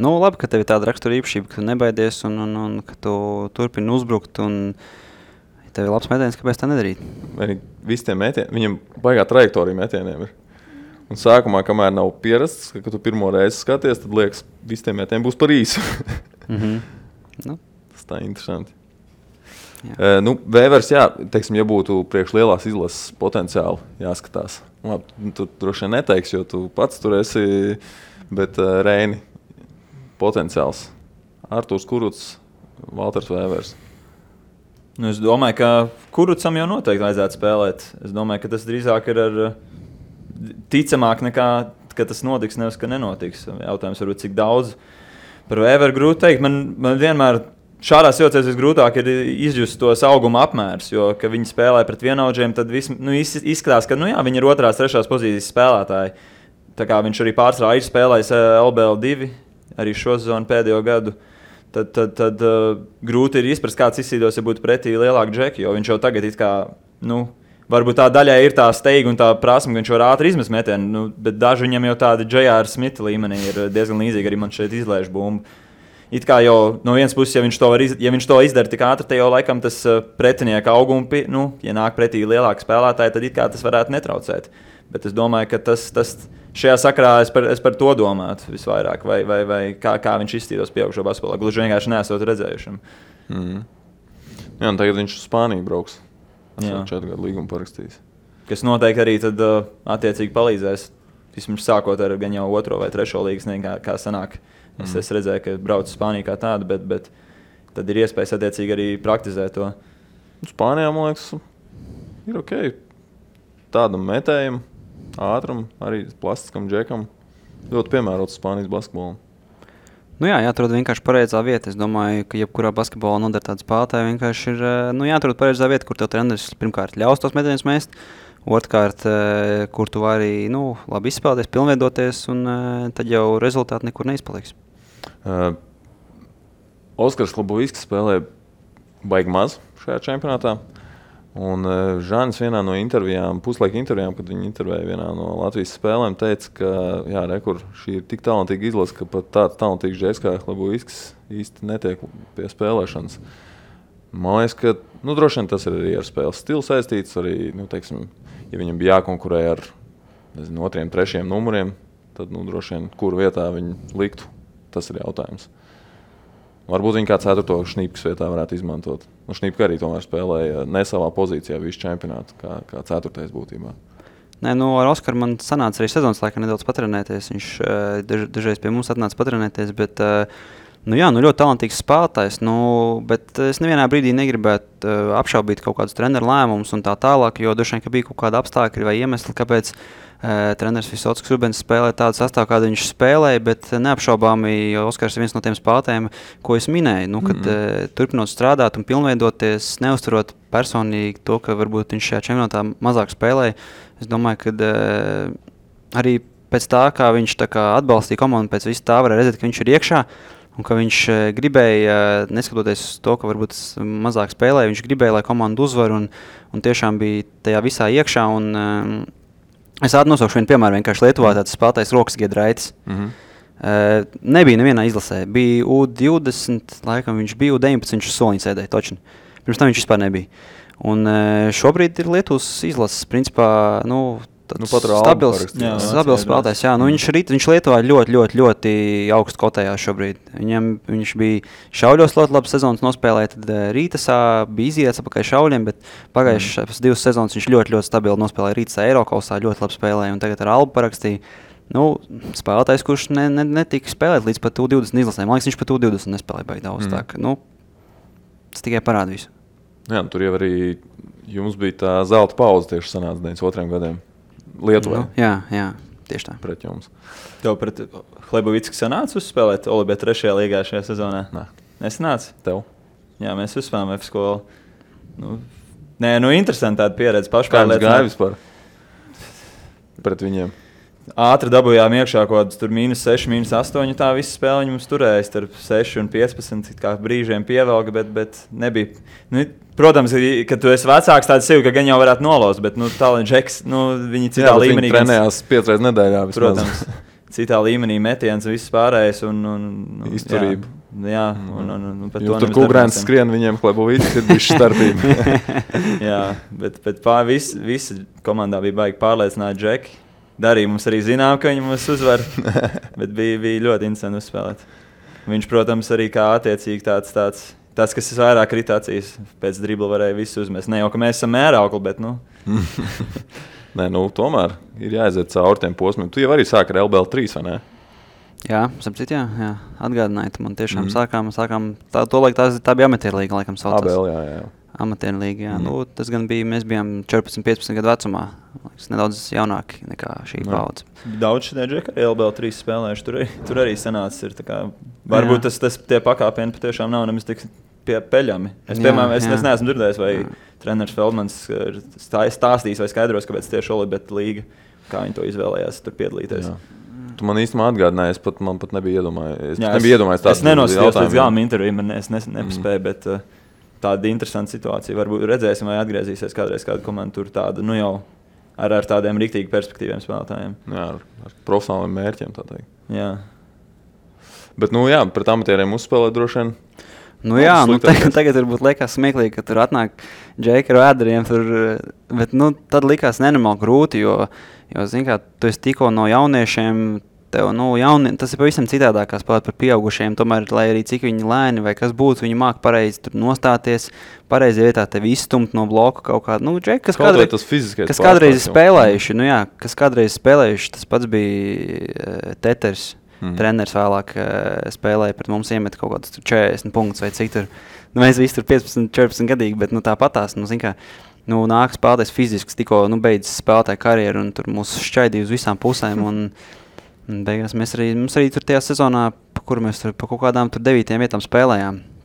Nu, labi, ka tev ir tāda rakstura īpašība, ka tu nebaidies un ka tu turpini uzbrukt, un ja tev ir labs metiens, kāpēc tā nedarīt? Visi tie metieni, viņam baigā trajektorija metieniem ir. Un sākumā, kamēr nav pierasts, ka tu pirmo reizi skaties, tad liekas, visi tie metieni būs par īsu. Nu. Tas tā interesanti. Nu, Vēvers, jā, teiksim, ja būtu priekš lielās izlases potenciāli jāskatās. Labi, tu droši vien neteiksi, jo tu pats tur esi, bet Reini potenciāls. Artūrs Kurucs, Valters Vēvers. Nu, es domāju, ka Kurucam jau noteikti vajadzētu spēlēt. Es domāju, ka tas drīzāk ir ar ticamāk nekā, ka tas notiks, nevis ka nenotiks. Jautājums varbūt cik daudz. Par Vēveru grūti teikt. Man vienmēr šādās situācijās visgrūtāk ir izjust tos auguma apmērus, jo, kad viņi spēlē pret vienaudžiem, tad izskatās, ka viņi ir 2. 3. pozīcijas spēlētāji. Tā kā viņš arī pārsvarā ir spēlējis LBL2, arī šo sezonu pēdējo gadu, tad grūti ir izprast, kāds izsīdos, ja būtu pretī lielāku džeki, jo viņš jau tagad it kā, varbūt tā daļai ir tā steiga un tā prasme, ka viņš var ātri izmest metienu, bet daži viņam jau tādi J.R. Smita līmenī ir diezgan līdzīgi, arī man šeit izlaiž bumbu. It kā jau no vienas puses, ja viņš to izdara tik ātri, tad jau laikam tas pretinieka augumi, ja nāk pretī lielāki spēlētāji, tad it kā tas varētu netraucēt. Bet es domāju, ka tas šajā sakarā es par to domātu visvairāk, vai kā viņš izstīdos pieaugušo basketbolā. Gluži vienkārši neesot redzējušam. Jā, un tagad viņš uz Spāniju brauks. Esmu 4 gadu līgumu parakstījis. Kas noteikti arī tad attiecīgi palīdzēs, vismaz sākot ar gan jau 2. vai 3. līgas, kā sanāk. Es redzēju, ka brauc uz Spāniju kā tādu, bet tad ir iespējas attiecīgi arī praktizēt to. Spānijā, man liekas, ir ok. Tādam metējam, ātram, arī plastiskam džekam. Ļoti piemērots Spānijas basketbolam. Jā, jāatrod vienkārši pareizā vieta. Es domāju, ka jebkurā basketbolā noder tāda spēlētāja vienkārši ir jāatrod pareizā vieta, kur tev treneris pirmkārt ļaus tos metienus mest, otrkārt, kur tu vari labi izspēlēties, pilnveidoties, un tad jau rezultāti nekur neizpaliks. Oskars Klubovskis spēlē baigi maz šajā čempionātā. Un Žānis vienā no intervijām, puslaika intervijām, kad viņi intervēja vienā no Latvijas spēlēm, teica, ka jā, rekur, šī ir tik talantīga izlase, ka pat tāds talantīgs džeks kā Klubovskis īsti netiek pie spēlēšanas. Man liekas, ka droši vien tas ir arī ar spēles stilu saistīts. Arī, teiksim, ja viņam bija jākonkurē ar 2. 3. numuriem, tad droši vien, kuru vietā viņi liktu, tas ir jautājums. Varbūt viņi kā 4. Šnīpkas vietā varētu izmantot. Šnīpka arī tomēr spēlēja ne savā pozīcijā visu čempionātu, kā 4. būtībā. Nē, ar Oskaru man sanāca arī sezonas laikā nedaudz patrenēties. Viņš dažreiz pie mums atnāca patrenēties, bet ļoti talantīgs spēlētājs, bet es nevienā brīdī negribētu apšaubīt kaut kādus treneru lēmumus un tā tālāk, jo droši vien, ka bija kaut kāda apstākļi vai iemesli, kāpēc treneris Visockis Rubens spēlē tādu sastāvu, kādu viņš spēlēja, bet neapšaubāmi, jo Oskars ir viens no tiem spēlētājiem, ko es minēju, kad turpinot strādāt un pilnveidoties, neuzturot personīgi to, ka varbūt viņš šajā čempionātā mazāk spēlēja, es domāju, ka arī pēc tā, kā viņš atbalstīja komandu, pēc visu tā varēja redzēt, ka viņš ir iekšā, un ka viņš gribēja, neskatoties uz to, ka varbūt mazāk spēlēja, viņš gribēja, lai komanda uzvar un tiešām bija tajā visā iekšā. Es nosaukšu vienu piemēru, vienkārši Lietuvā tāds spēlētājs Rokas Giedraitis. Nebija nevienā izlasē. Bija U20, laikam viņš bija U19, viņš soliņu sēdēja točni. Pirms tam viņš vispār nebija. Un šobrīd ir Lietuvas izlases, principā, stabils spēlētājs. Jā, viņš Lietuvā ļoti augstu kotējā šobrīd. Viņš bija šauļos ļoti labi sezonas nospēlēja, tad Rītasā bija iziets apakaļ šauļiem, bet pagājušās 2 sezonas viņš ļoti stabili nospēlēja Rītasā Eirokausā, ļoti labi spēlēja, un tagad ar Albu parakstīja. Spēlētājs, kurš netika spēlēt līdz pat U20 izlasēm. Man liekas, viņš pat U20 nespēlēja baigi daudz. Tā, ka, tas tikai parāda visu. Jā, tur jau arī jums bija tā zelta pauze tieši sanāca 92 gadiem Lietuvai. Jā, tieši tā. Pret jums. Tev pret Hlebovicku sanāca uzspēlēt Olibē 3. līgā šajā sezonā? Nē. Nesanāca? Tev? Jā, mēs uzspēlējām F skolu. Interesanti tāda pieredze. Kā jums gāja vispār pret viņiem? Ātri dabūjām iekšā kaut kāds -6, -8. Tā visa spēle mums turēja starp 6 un 15. Kā brīžiem pievelka, bet nebija. Protams, kad tu esi vecāks, tāds sevi, ka gan jau varētu nolaust, bet tālāk Džeks, viņi citā līmenī. Viņi trenējās 5 reizes nedēļā vismaz. Protams, citā līmenī metiens un viss pārējais. Izturība. Jā, un par to tur Kugrēns skrien viņiem Hlebovicks ir bijuši starpība. Jā, bet visi komandā bija baigi pārliecināti Džeki. Darīja mums arī zinām, ka viņi mums uzvar, bet bija ļoti interesanti uzspēlēt. Viņš, protams, arī kā attiecīgi tāds kas vairāk kritācijas pēc dribla varēja visu uzmest. Ne jau, ka mēs esam mēraukli, bet Nē, tomēr ir jāaiziet cauri tiem posmiem. Tu jau arī sāki ar LBL 3, vai ne? Jā, sapcīt, jā. Atgādinājiet, man tiešām sākām to laiku tā bija amatierlīga, laikam saucās. ABL, jā. Amatierlīga, jā. Tas gan bija, mēs bijām 14-15 gadu vecumā. Nedaudz jaunāki nekā šī paudze. Daudz šitie Džeki arī LBL 3 spēlējuši. Tur arī sanācis. Varbūt tie pakāpieni patiešām nav nemaz tik peļami. Es neesmu dzirdējis, vai treneris Feldmans ir stāstījis vai skaidros, kāpēc tieši Olibet līga, kā viņi to izvēlējās tur piedalīties. Jā. Tu man īstenībā atgādināji, man pat nebija iedomājies. Es nenosījos līdz galam interviju, es nepaspēju, bet tāda interesanta situācija. Varbūt redzēsim, vai atgriezīsies kādreiz kāda komanda tur tāda, jau ar tādiem riktīgi perspektīviem spēlētājiem. Jā, ar profesionāliem mērķiem, tā teikt. Jā. Bet, pret amatieriem uzspēlēt droši vien. Tagad varbūt liekas smieklīgi, ka tur atnāk Džeki ar vēderiem, bet tad likās nenormāli grūti, jo zini kā, tu esi tikko no jauniešiem, tev, tas ir pavisam citādāk kā spēlēt par pieaugušiem, tomēr, lai arī cik viņi lēni vai kas būtu, viņi māk pareizi tur nostāties, pareizi vietā tevi izstumt no bloka kaut kādu, Džeki, kas kādreiz spēlējuši, tas pats bija Teters. Treneris vēlāk spēlēja pret mums, iemet kaut kādus 40 punktus vai cik tur. Mēs visi tur 15-14 gadīgi, bet tāpatās, nāk spēlētājs fizisks, tikko beidzis spēlētāju karjeru un tur mūs šķaidīja uz visām pusēm un beigās mums arī tur tajā sezonā, kur mēs tur pa kaut kādām tur 9 vietām spēlējām.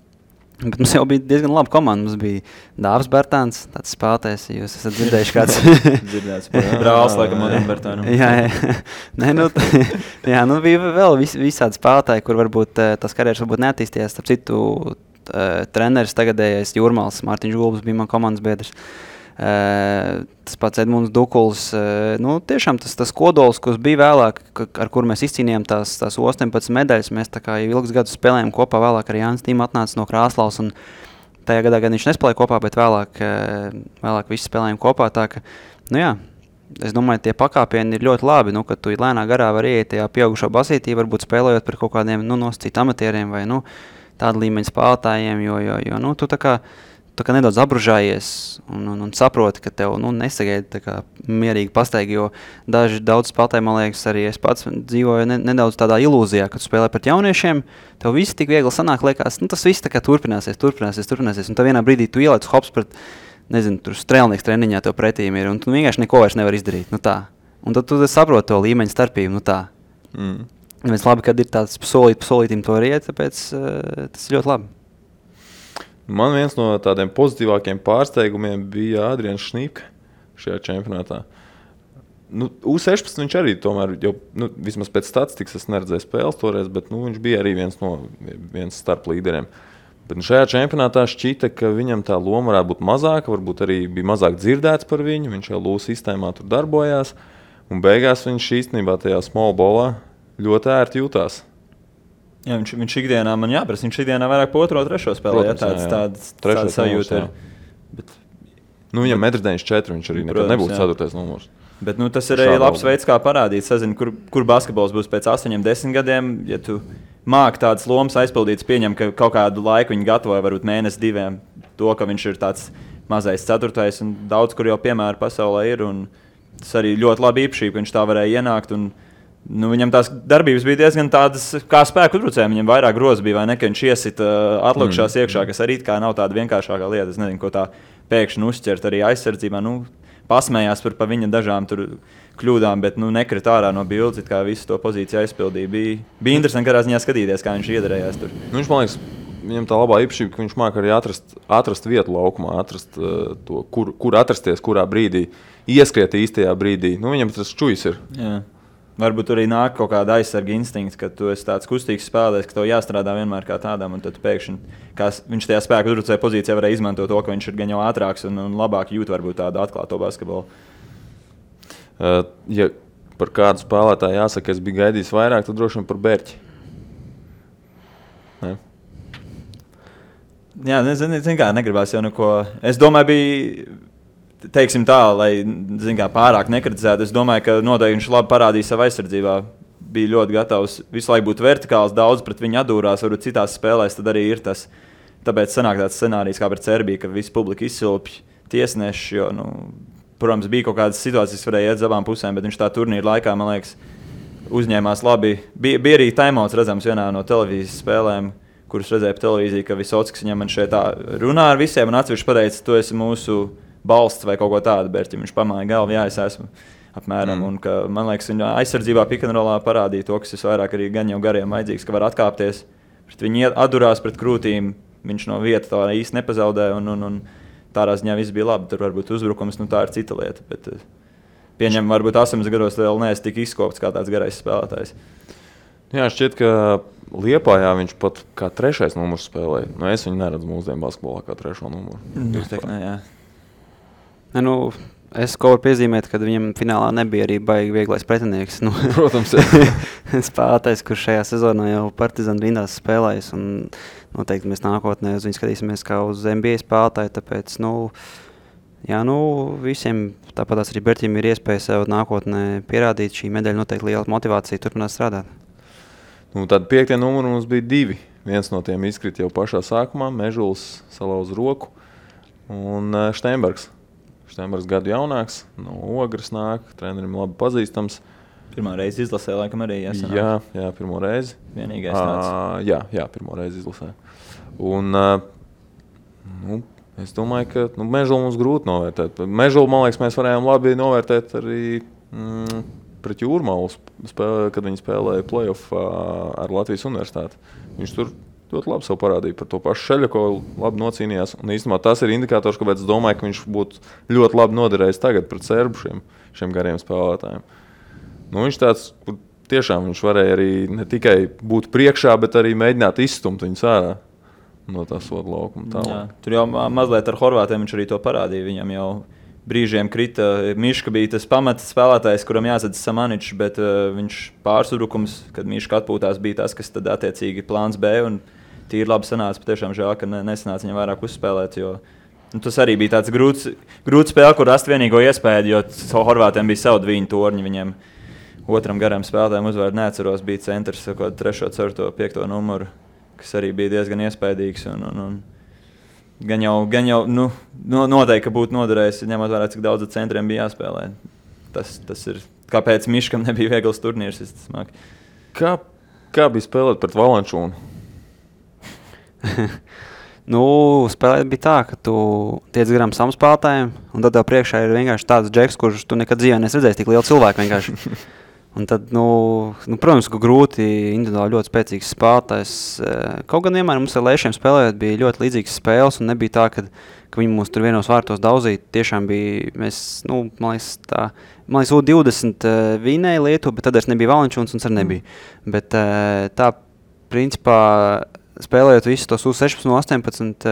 Bet mums jau bija diezgan laba komanda. Mums bija Dāvis Bertāns, tāds spēlētājs, jūs esat dzirdējuši kāds. Dzirdēts, brālis, laikam, Modern Bertānam. Jā, bija vēl visādi spēlētāji, kur varbūt tas karjeras varbūt neattīstījās. Starp citu, treneris tagadējais Jūrmāls, Mārtiņš Gulbis bija man komandas biedrs. Tas pats Edmunds Dukuls, tiešām tas kodols, kas bija vēlāk, ar kuru mēs izcīnījām tās 18 medaļas, mēs tā kā jau ilgus gadus spēlējām kopā, vēlāk arī Jānis Tīma atnāca no Krāslavas, un tajā gadā gan viņš nespēlēja kopā, bet vēlāk visi spēlējām kopā, tā ka, es domāju, tie pakāpieni ir ļoti labi, kad tu lēnā garā var ieiet tajā pieaugušo basītī, varbūt spēlējot par kaut kādiem, nosacīt amatieriem vai, tādu līmeņu spēlētājiem, jo tu tā kā nedaudz apružājies un saproti, ka tev nesagaida mierīgi pastaigi, jo daudz spēlētāji, man liekas, arī es pats dzīvoju nedaudz tādā ilūzijā, kad tu spēlē pret jauniešiem, tev viss tik viegli sanāk, liekas, tas viss tā kā turpināsies, un tā vienā brīdī tu ielēc hops pret, tur strēlnieks treniņā tev pretīm ir, un tu vienkārši neko vairs nevar izdarīt, Un tad tu saproti to līmeņu starpību, Mēs labi, kad ir tāds solītim to riet, tāpēc tas ir ļoti labi. Man viens no tādiem pozitīvākiem pārsteigumiem bija Adrians Šnīpka šajā čempionātā. U16 viņš arī tomēr, vismaz pēc statistikas es neredzēju spēles toreiz, bet viņš bija arī viens starp līderiem. Bet šajā čempionātā šķita, ka viņam tā loma varētu būt mazāka, varbūt arī bija mazāk dzirdēts par viņu, viņš jau LU sistēmā tur darbojās, un beigās viņš īstenībā tajā small ballā ļoti ērti jutās. Jā, viņš ikdienā man jāprasa, viņš ikdienā vairāk po 2, 3 spēlē, tāda sajūta ir. Bet, viņam 1,94 viņš arī nekad nebūtu 4. numurs. Bet tas ir arī labs veids, kā parādīt, sazini, kur basketbols būs pēc 8-10 gadiem, ja tu māki tādas lomas aizpildītas, pieņem, ka kaut kādu laiku viņi gatavoja, varbūt mēnesi 2, to, ka viņš ir tāds mazais 4. un daudz, kur jau piemēri pasaulē ir, un tas arī ļoti labi īpašība, ka viņš tā varēja ienākt un Viņam tās darbības bija diezgan tādas kā spēku uzbrucējiem. Viņam vairāk grozi bija, vai ne, ka viņš iesita atlikušās iekšā, kas arī kā nav tāda vienkāršākā lieta. Es nezinu, ko tā pēkšņi uzķert arī aizsardzībā. Pasmējās par viņa dažām tur kļūdām, bet nekrit ārā no bildes, kā visu to pozīciju aizpildīja. Bija interesanti kādā ziņā skatīties, kā viņš iedarējās tur. Viņš, man liekas, viņam tā labā īpašība, ka viņš māk arī atrast vietu laukumā, atrast to, kur atrasties, kurā brīdī, ieskriet īstajā brīdī. Viņam tas čujs ir. Jā. Varbūt arī nāk kaut kāda aizsarga instinkts, ka tu esi tāds kustīgs spēlētājs, ka tev jāstrādā vienmēr kā tādam, un tad pēkšņi viņš tajā spēku uzbrucēja pozīcijā varēja izmantot to, ka viņš ir gan jau ātrāks un labāk jūt varbūt tādu atklāto basketbolu. Ja par kādu spēlētāju jāsaka, es biju gaidījis vairāk, tad droši vien par Bērķi. Ne? Jā, nezinu kā, negribās jau neko. Es domāju, bija... Teiksim tā, lai pārāk nekritizētu. Es domāju, ka noteikti viņš labi parādīja savu aizsardzībā. Bija ļoti gatavs visu laiku būt vertikāls, daudz pret viņu atdūrās, varbūt citās spēlēs tad arī ir tas. Tāpēc sanāk tāds scenārijs kā pret Serbiju, ka visi publika izsilpj tiesneši, jo, protams, bija kaut kādas situācijas, kas varēja iet uz abām pusēm, bet viņš tā turnīra laikā, man liekas, uzņēmās labi. Bija arī taimauts redzams vienā no televīzijas spēlēm, kurus redzēja pa televīziju, ka Visockis viņam šeit tā runā ar visiem un atsevišķi pateica, tu esi mūsu balsts vai kaut ko tādu, bet viņš pamāja galvu, jā, es esmu apmēram. Un ka, man liekas, viņa aizsardzībā pick-and-rollā parādīja to, kas visvairāk arī gan jau gariem vajadzīgs, ka var atkāpties. Viņi atdurās pret krūtīm, viņš no vietas tā īsti nepazaudēja un tādā ziņā viss bija labi. Tur varbūt uzbrukums, tā ir cita lieta. Bet pieņem, varbūt 8 gados vēl neesi tik izkopts kā tāds garais spēlētājs. Jā, šķiet, ka Liepājā viņš pat kā 3. numurs spēlēja. Es viņu neredzu mūsdienu basketbolā kā 3. numuru. Jā. Es ko varu piezīmēt, ka viņam finālā nebija arī baigi vieglais pretinieks. Protams, spēlētājs, kurš šajā sezonā jau Partizan rindās spēlējis. Noteikti mēs nākotnē uz viņu skatīsimies kā uz NBA spēlētāju. Tāpēc, visiem, tāpatās arī Berķim ir iespēja sev nākotnē pierādīt. Šī medaļa noteikti liela motivācija turpināt strādāt. Tad 5. numuru mums bija 2. Viens no tiem izkrita jau pašā sākumā. Mežuls salauz roku un Steinbergs. Steinbergs gadu jaunāks, no Ogres nāk, trenerim labi pazīstams. Pirmā reize izlasē, laikam arī jāsanāk. Jā, pirmo reizi. Vienīgais tāds. Jā, pirmo reizi izlasē. Un es domāju, ka Mežulu mums grūti novērtēt. Mežulu, man liekas, mēs varējām labi novērtēt arī pret Jūrmalu, kad viņi spēlēja playoff ar Latvijas universitāti. Viņš tur ļoti labi sev parādīja par to pašu Šeļakovu, labi nocīnījās. Un īstenībā tas ir indikators, kāpēc es domāju, ka viņš būtu ļoti labi noderējis tagad pret serbu šiem gariem spēlētājiem. Viņš tāds, tiešām viņš varēja arī ne tikai būt priekšā, bet arī mēģināt izstumt viņus ārā no tā soda laukuma. Jā, tur jau mazliet ar horvātiem viņš arī to parādīja. Viņam jau brīžiem krita. Miška bija tas pamats spēlētājs, kuram jāsadz Samaničs, bet viņš pārsudrukums, kad Miška atpūtās, bija tas, kas tad attiecīgi plāns B. Un tīri labi sanāca, patiešām žēl, ka nesanāca viņam vairāk uzspēlēt, jo tas arī bija tāds grūts spēle, kur rast vienīgo iespēju, jo horvātiem bija savu dviņu torņi, viņiem otram garam spēlētājiem uzvārdu neatceros, bija centrs, 3., 4., 5. numuru, kas arī bija diezgan iespaidīgs un gan jau noteikti, ka būtu noderējis, ņemot vērā, cik daudz centriem bija jāspēlē. Tas ir, kāpēc Miškam nebija viegls turnīrs, Kā bija spēlēt pret Valančūnu? Spēlēt bija tā, ka tu tiec garām savam spēlētājiem, un tad tev priekšā ir vienkārši tāds džeks, kurš tu nekad dzīvē nesredzēsi tik lielu cilvēku vienkārši. Un tad, protams, ka grūti individuāli ļoti spēcīgs spēlētājs. Kaut gan vienmēr mums ar Lēšiem spēlējot bija ļoti līdzīgas spēles, un nebija tā, ka viņi mūs tur vienos vārtos daudzīja. Tiešām bija, man liekas, U20 vinēja Lietuva, bet tad es nebija Valančūns un arī nebija. Bet tā, principā, spēlējot visus tos U16, U18,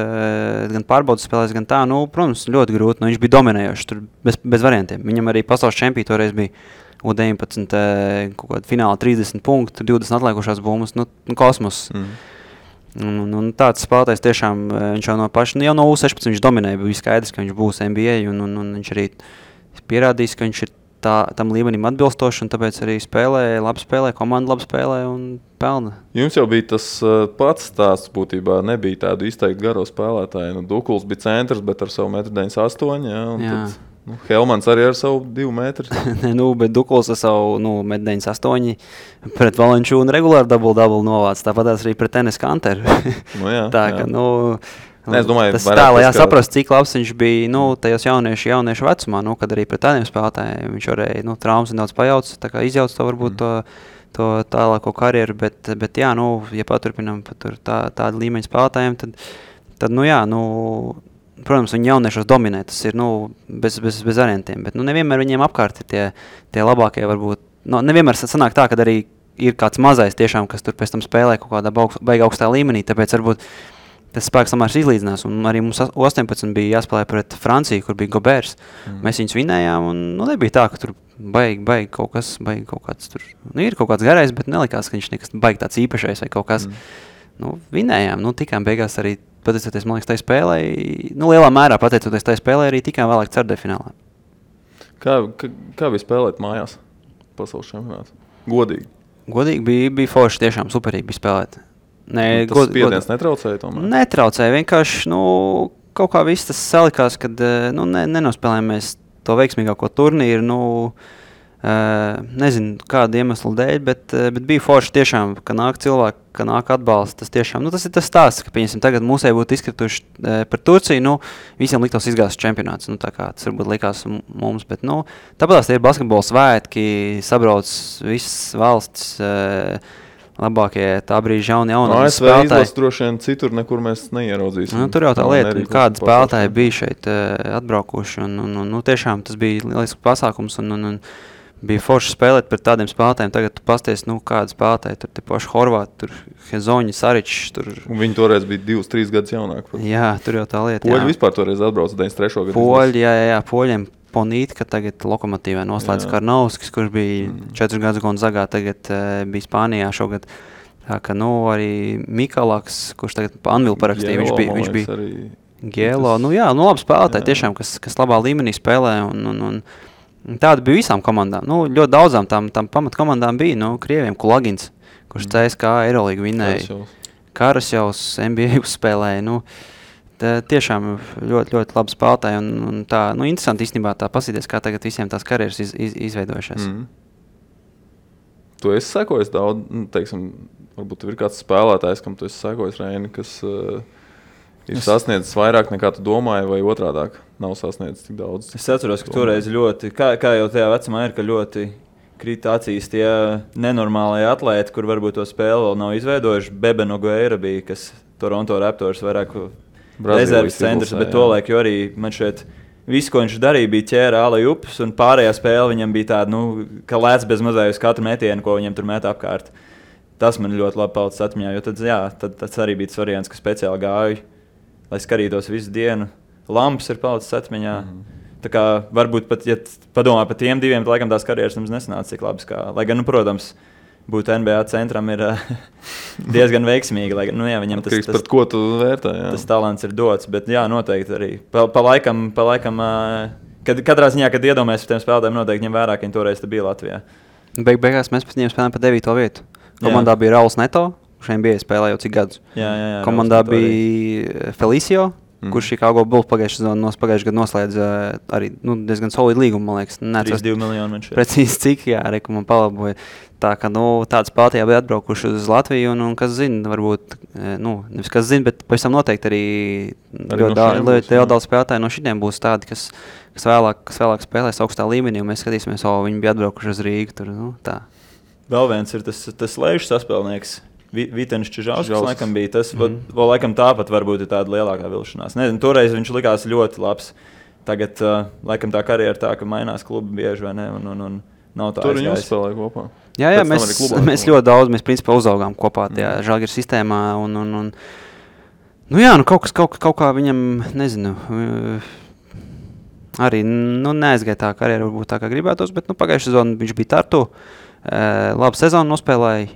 gan pārbaudas spēlēs, gan tā, protams, ļoti grūti. Viņš bija dominējošs, tur bez variantiem. Viņam arī pasaules čempī toreiz bija U19 kaut kāda fināla 30 punktu, 20 atliekušās bummas, kosmos. Un tāds spēlētājs tiešām, viņš jau no paša, jau no U16 viņš dominēja, bija skaidrs, ka viņš būs NBA, un viņš arī pierādījis, ka viņš ir tam līmenim atbilstoši, un tāpēc arī labi spēlē, komanda labi spēlē un pelna. Jums jau bija tas pats stāsts būtībā, nebija tādu izteikti garo spēlētāju. Dukuls bija centrs, bet ar savu 1,98 m, Helmans arī ar savu 2 metru. Bet Dukuls ar savu 1,98 pret Valenčūnu regulāri double novāc. Tāpat arī pret Enes Kanteru. Jā, tā ka, es domāju, tas tā, lai jāsaprast, cik labs viņš bija tajos jauniešu vecumā, kad arī pret tādiem spēlētājiem viņš varēja traumas nedaudz pajauc, tā kā izjauc to varbūt to tālāko karjeru, bet jā, ja paturpinām tādu līmeņu spēlētājiem, tad protams, viņi jauniešos dominē, tas ir bez variantiem, bet nevienmēr viņiem apkārt ir tie labākie varbūt, nevienmēr sanāk tā, kad arī ir kāds mazais tiešām, kas tur pēc tam spēlē kaut kādā baigā augstā līmenī, tāpēc varbūt tas spēks samērs izlīdzinās, un arī mums 18 bija jāspēlē pret Franciju, kur bija Goberts. Mēs viņus vinējām, un nebija tā, ka tur baigi kaut kāds tur, ir kaut kāds garais, bet nelikās, ka viņš nekas baigi tāds īpašais vai kaut kas. Vinējām, tikām beigās arī, pateicoties, man liekas, tai spēlē, lielā mērā pateicoties tai spēlē, arī tikām vēlāk ceturtdaļfinālā. Kā bija spēlēt mājās pasaules čempionātā? Godīgi? Godīgi bija forši, tiešām superīgi bija spēlēt. Tas spiediens netraucēja tomēr? Netraucēja, vienkārši, kaut kā viss tas salikās, kad, nenospēlējām mēs to veiksmīgāko turnīru, nezinu, kādu iemeslu dēļ, bet bija forši tiešām, ka nāk cilvēki, ka nāk atbalsts, tas tiešām, tas ir tas stāsts, ka, pieņemsim, tagad mūsēji būtu izkrituši par Turciju, visiem liktos izgāzes čempionāts, tā kā tas varbūt likās mums, bet, tāpēc tie ir basketbola svētki, sabrauc visas valsts, labākie tā brīža jauni spēlētāji. ASV izlas droši vien citur nekur mēs neieraudzīsim. Tur jau tā lieta, kādi spēlētāji bija šeit atbraukuši, un tiešām tas bija lielisks pasākums, un bija forši spēlēt pret tādiem spēlētājiem. Tagad tu pasties, kādi spēlētāji, tur te paši Horvāti, tur Hezoņi, Saričs. Un viņi toreiz bija 2-3 gadus jaunāki. Jā, tur jau tā lieta. Poļi vispār toreiz atbrauca 93. gadu. Poļi, jā, Poļiem. Ponītka tagad Lokomotīvē noslēdz Karnovskis, kurš bija 4 gadus Gonzagā, tagad bija Spānijā šogad. Tā ka, arī Mikalaks, kurš tagad Anvilu parakstīja, viņš bija Gielo. Labi spēlētāji tiešām, kas labā līmenī spēlē, un tāda bija visām komandām. Ļoti daudzām tām pamatkomandām bija, Krieviem Kulagins, kurš CSKA Eirolīgu vinēja. Karasjovs NBA uzspēlēja, tiešām ļoti, ļoti labi spēlētāji, un tā, interesanti īstenībā tā pasīties, kā tagad visiem tās karjeras izveidojušās. Tu esi sekojis daudz, teiksim, varbūt ir kāds spēlētājs, kam tu esi sekojis, Reini, kas ir sasniedzis vairāk nekā tu domāji, vai otrādāk nav sasniedzis tik daudz? Es atceros, ka toreiz ļoti, kā jau tajā vecumā ir, ka ļoti krīt acīs tie nenormālie atlēti, kur varbūt to spēli vēl nav izveidojuši. Bebe Nogueira bija, kas Toronto Raptors vairāk rezerves centrs, bet tolaik jau arī man šeit visu, ko viņš darīja, bija ķēra ālai upes, un pārējā spēle viņam bija tāda, ka lēc bez mazai uz katru metienu, ko viņam tur met apkārt. Tas man ļoti labi palicis atmiņā, jo tad tas arī bija tas variants, ka speciāli gāju, lai skatītos visu dienu. Lamps ir palicis atmiņā. Tā kā varbūt pat, ja padomā par tiem diviem, tad laikam tās karjeras mums nesanāca cik labas kā, lai gan, protams, būt NBA centram ir diezgan veiksmīgi, lai viņam tas par ko tu vērtē, jā. Tas talants ir dots, bet jā, noteikti arī. Pa laikam, katrā ziņā, kad iedomājas par tiem spēlētājiem, noteikti ņem vērā, ka viņi toreiz bija Latvijā. Beigās mēs pēc viņiem spēlējām pa 9. vietu. Komandā bija Rauls Neto, kurš NBA spēlēja jau cik gadus. Jā, komandā bija Felicio, kurš Chicago Bulls pagājušajā gadā noslēdz arī diezgan solidu līgumu, man liekas. 32 miljoni viņš ir. Precīzi cik, jā, reku man palaboja. Tā ka, tāds spēlētāji bija atbraukuši uz Latviju, un kas zina, varbūt, nevis kas zina, bet pavisam noteikti arī ļoti daudz spēlētāji no šitiem būs tādi, kas vēlāk spēlēs augstā līmenī, un mēs skatīsimies, viņi bija atbraukuši uz Rīgu, tur, tā. Vēl viens ir tas lejušs saspēlnieks. Vitenis Čižauskas laikam bija tas, vēl laikam tāpat varbūt ir tāda lielākā vilšanās. Nezinu, toreiz viņš likās ļoti labs. Tagad laikam tā karjera tā, ka mainās klubi bieži, vai ne, un nav tā aizgājis. Tur viņi uzspēlēja kopā. Jā, mēs ļoti daudz, mēs principā uzaugām kopā tajā Žalgiris sistēmā, kaut kā viņam, nezinu, arī, neaizgāja tā karjera, varbūt tā kā gribētos, bet, pagājušajā sezonā viņš bija Tartu, labu sezonu nospēlēja,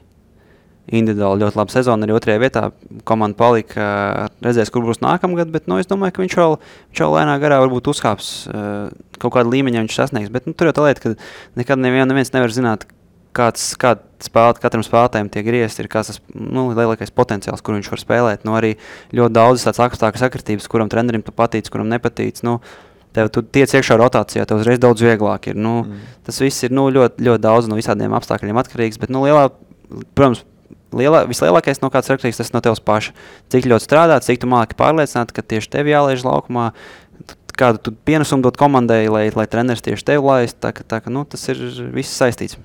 individuāli ļoti laba sezona, arī 2. vietā komanda palika, redzēs, kur būs nākamgad, bet es domāju, ka viņš vēl lēnā garā varbūt uzkāps kaut kādu līmeņu viņš sasniegs, bet tur jau tā lieta, ka nekad neviens nevar zināt, katram spēlētājiem tie griezti ir kāds tas lielākais potenciāls, kur viņš var spēlēt. Arī ļoti daudz tāds apstākļu sakritības, kuram trenerim tu patīc, kuram nepatīc. tev tu tiec iekšā rotācijā, tev uzreiz daudz vieglāk ir. Tas viss ir ļoti, ļoti daudz no visādiem apstākļiem atkarīgs, bet protams, vislielākais no kāds atkarīgs, tas no tevs paša. Cik ļoti strādāt, cik tu māki pārliecināt, ka tieši tev jālaiž laukumā, kādu tu pienesumu dot komandai, lai treneris tieši tev laist, tā ka tas ir viss saistīts.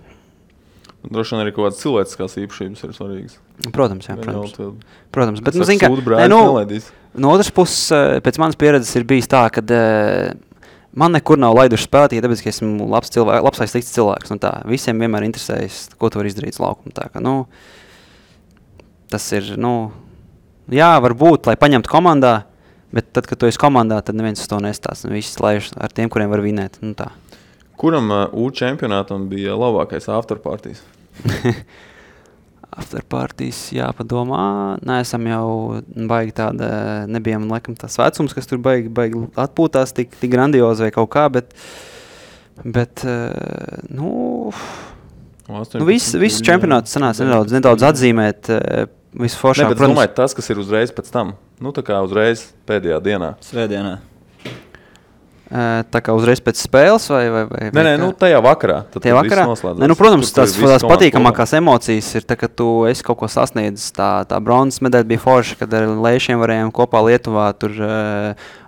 Droši vien arī kaut kādas cilvēciskās īpašības ir svarīgas. Protams, jā, protams. Bet, zin, no otras puses, pēc manas pieredzes ir bijis tā, ka man nekur nav laiduši spēlēt, ja tāpēc, ka esmu labs vai slikts cilvēks. Visiem vienmēr interesējas, ko tu vari izdarīt uz laukuma. Tā ka, tas ir, jā, varbūt, lai paņemtu komandā, bet tad, kad tu esi komandā, tad neviens uz to nestās. Visi laiž ar tiem, kuriem var vinēt. Tā. Kuram U čempionātam bija labākais afterpartijas? Afterpartijas jāpadomā. Neesam jau baigi tāda, nebijām laikam tās vecums, kas tur baigi atpūtās tik grandiozi vai kaut kā, bet viss čempionāts sanāca nedaudz atzīmēt visu foršāk. Bet domāju, tas, kas ir uzreiz pēc tam, tā kā uzreiz pēdējā dienā. Svētdienā. Tā kā uzreiz pēc spēles vai Nē, tajā vakarā. Tajā vakarā? Nē, protams, tās patīkamākās emocijas ir, kad tu esi kaut ko sasniedzis. Tā bronzas medaļa bija forša, kad ar Leišiem varējām kopā Lietuvā tur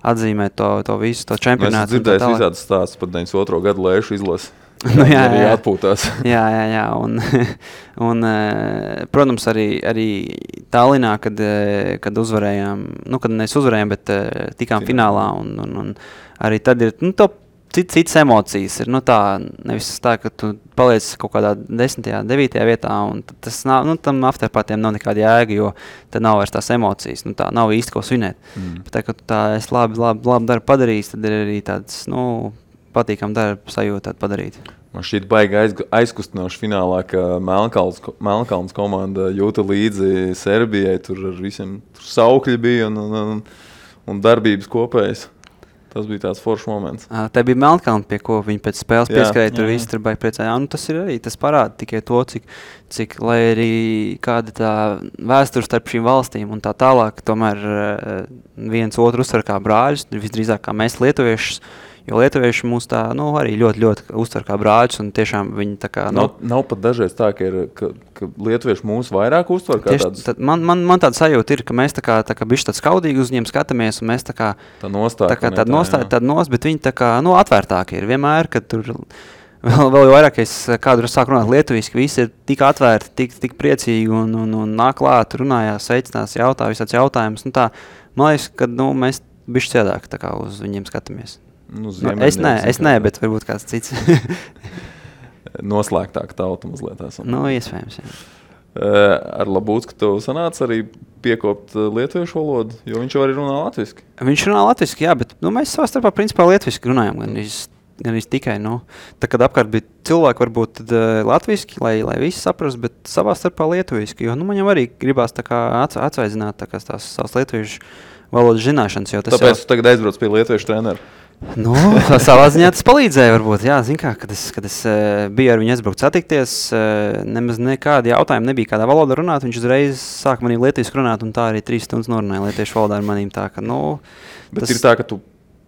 atzīmēt to visu, to čempionātu. Es dzirdēju visādas stāstus par 92. gadu Leišu izlasi. Jā, atpūtās. Jā. Un protams, arī Tallinā, kad uzvarējām, kad mēs uzvarējām, bet tikām finālā un arī tad ir citas emocijas. Ir nevis tā, ka tu paliec kaut kādā 10., 9. vietā, un tas nav, tam afterpartiem nav nekāda jēga, jo tad nav vairs tās emocijas. Tā nav īsti ko svinēt. Bet tā, ka tu es labi darbu padarījis, tad ir arī tāds, patīkam darbu sajūtu padarīt. Man šķiet baigi aizkustinoši finālā, ka Melnkalns komanda jūta līdzi Serbijai, tur ar visiem saukļi bija un darbības kopējas. Tas bija tāds foršs moments. Tā bija Melnkalna, pie ko viņi pēc spēles pieskarēja, tur visi tur baigi priecāja. Tas ir arī, tas parāda tikai to, cik lai arī kāda tā vēsture starp šīm valstīm un tā tālāk, tomēr viens otru uztver kā brāļus, visdrīzāk kā mēs lietuviešus, jo lietuvieši mūs tā, arī ļoti, ļoti uztver kā brāļus, un tiešām viņi tā kā... Nav pat dažreiz tā, ka lietuvieši mūs vairāk uztver kā tādus... Man tāda sajūta ir, ka mēs tā kā bišķi tāds skaudīgi uz viņiem skatāmies, un mēs tā kā... Tā nostāja. Bet viņi tā kā, atvērtāki ir vienmēr, kad tur... Vēl vairāk, es kādu sāku runāt lietuviski, visi ir tik atvērti, tik priecīgi un nāk klāt, runājās, sveicinās, jautā visāds jautājumus. Man liekas, ka mēs bišķi ciedāk tā kā uz viņiem skatāmies. Es nē, bet varbūt kāds cits. Noslēgtāk tauta mazliet esam. Iespējams, jā. Ar Labūcku tev sanāca arī piekopt lietuviešu valodu, jo viņš jau arī runā latviski. Viņš runā latviski, jā, bet mēs savā starpā principā latviski runājam, gan tikai, tā kad apkārt bija cilvēki varbūt tad latviski, lai visi saprast, bet savā starpā lietuviski, jo man jau arī gribās tā kā atsvaidzināt tā kā tās savas lietuviešu valodas zināšanas, jo tas tāpēc tu tagad aizbrauc pie lietuviešu treneru. Savā ziņā tas palīdzēja varbūt, jā, zin kā, kad es biju ar viņu aizbraukt satikties, nemaz nekādi jautājumi nebija kādā valodā runāt, viņš uzreiz sāk manī lietuviešu runāt, un tā arī 3 stundas norunāja lietuviešu valodā ar manīm, tā ka, Bet ir tā, ka tu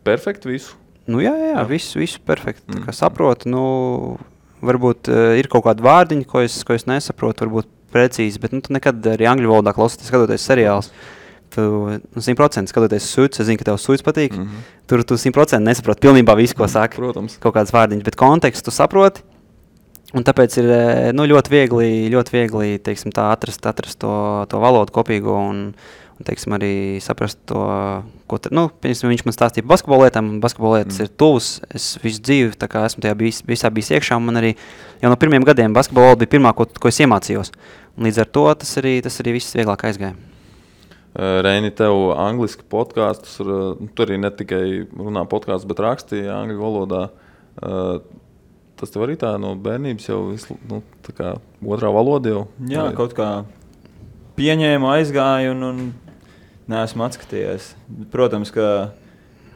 perfekti visu? Jā, visu perfekti, tā kā saprotu, varbūt ir kaut kādi vārdiņi, ko es nesaprotu, varbūt precīzi, bet tu nekad arī angļu valodā klausoties, skatoties seriālus, tu 100% skatoties Suits, es zinu, ka tev Suits patīk, tur tu 100% nesaproti pilnībā visu, ko saka, protams. Kaut kādas vārdiņas, bet kontekstu tu saproti, un tāpēc ir ļoti viegli, teiksim, tā atrast to valodu kopīgo un teiksim, arī saprast to, ko viņš man stāstīja par basketbolu lietām, un basketbolu lietas ir tuvs, es visu dzīvi, tā kā esmu tajā visā bijis iekšā, un man arī jau no pirmiem gadiem basketbolu bija pirmā, ko es iemācījos, un līdz ar to tas arī viss vieglāk aizgāja. Reini, tev angliski podkastus, tu arī ne tikai runā podkastus, bet rakstīja angļu valodā. Tas tev arī tā no bērnības jau tā kā otrā valoda jau? Jā, kaut kā pieņēmu, aizgāju un neesmu atskatījies. Protams, ka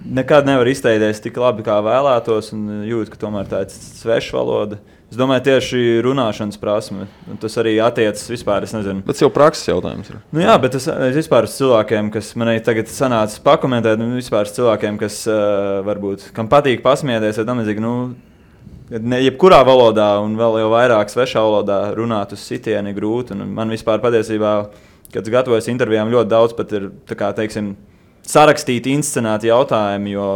nekad nevar izteikties tik labi, kā vēlētos, un jūtu, ka tomēr tā ir sveša valoda. Es domāju, tieši runāšanas prasme. Tas arī attiecas vispār, es nezinu. Bet jau prakses jautājums ir. Nu jā, bet es vispār uz cilvēkiem, kas man arī tagad sanāca pakomentēt, vispār uz cilvēkiem, kas varbūt, kam patīk pasmieties, vai tam līdzīgi, jebkurā valodā un vēl jau vairāk svešā valodā runāt uz sitieni grūti. Un man vispār patiesībā, kad es gatavojos intervijām, ļoti daudz pat ir, tā kā, teiksim, sarakstīti, inscenēti jautājumi, jo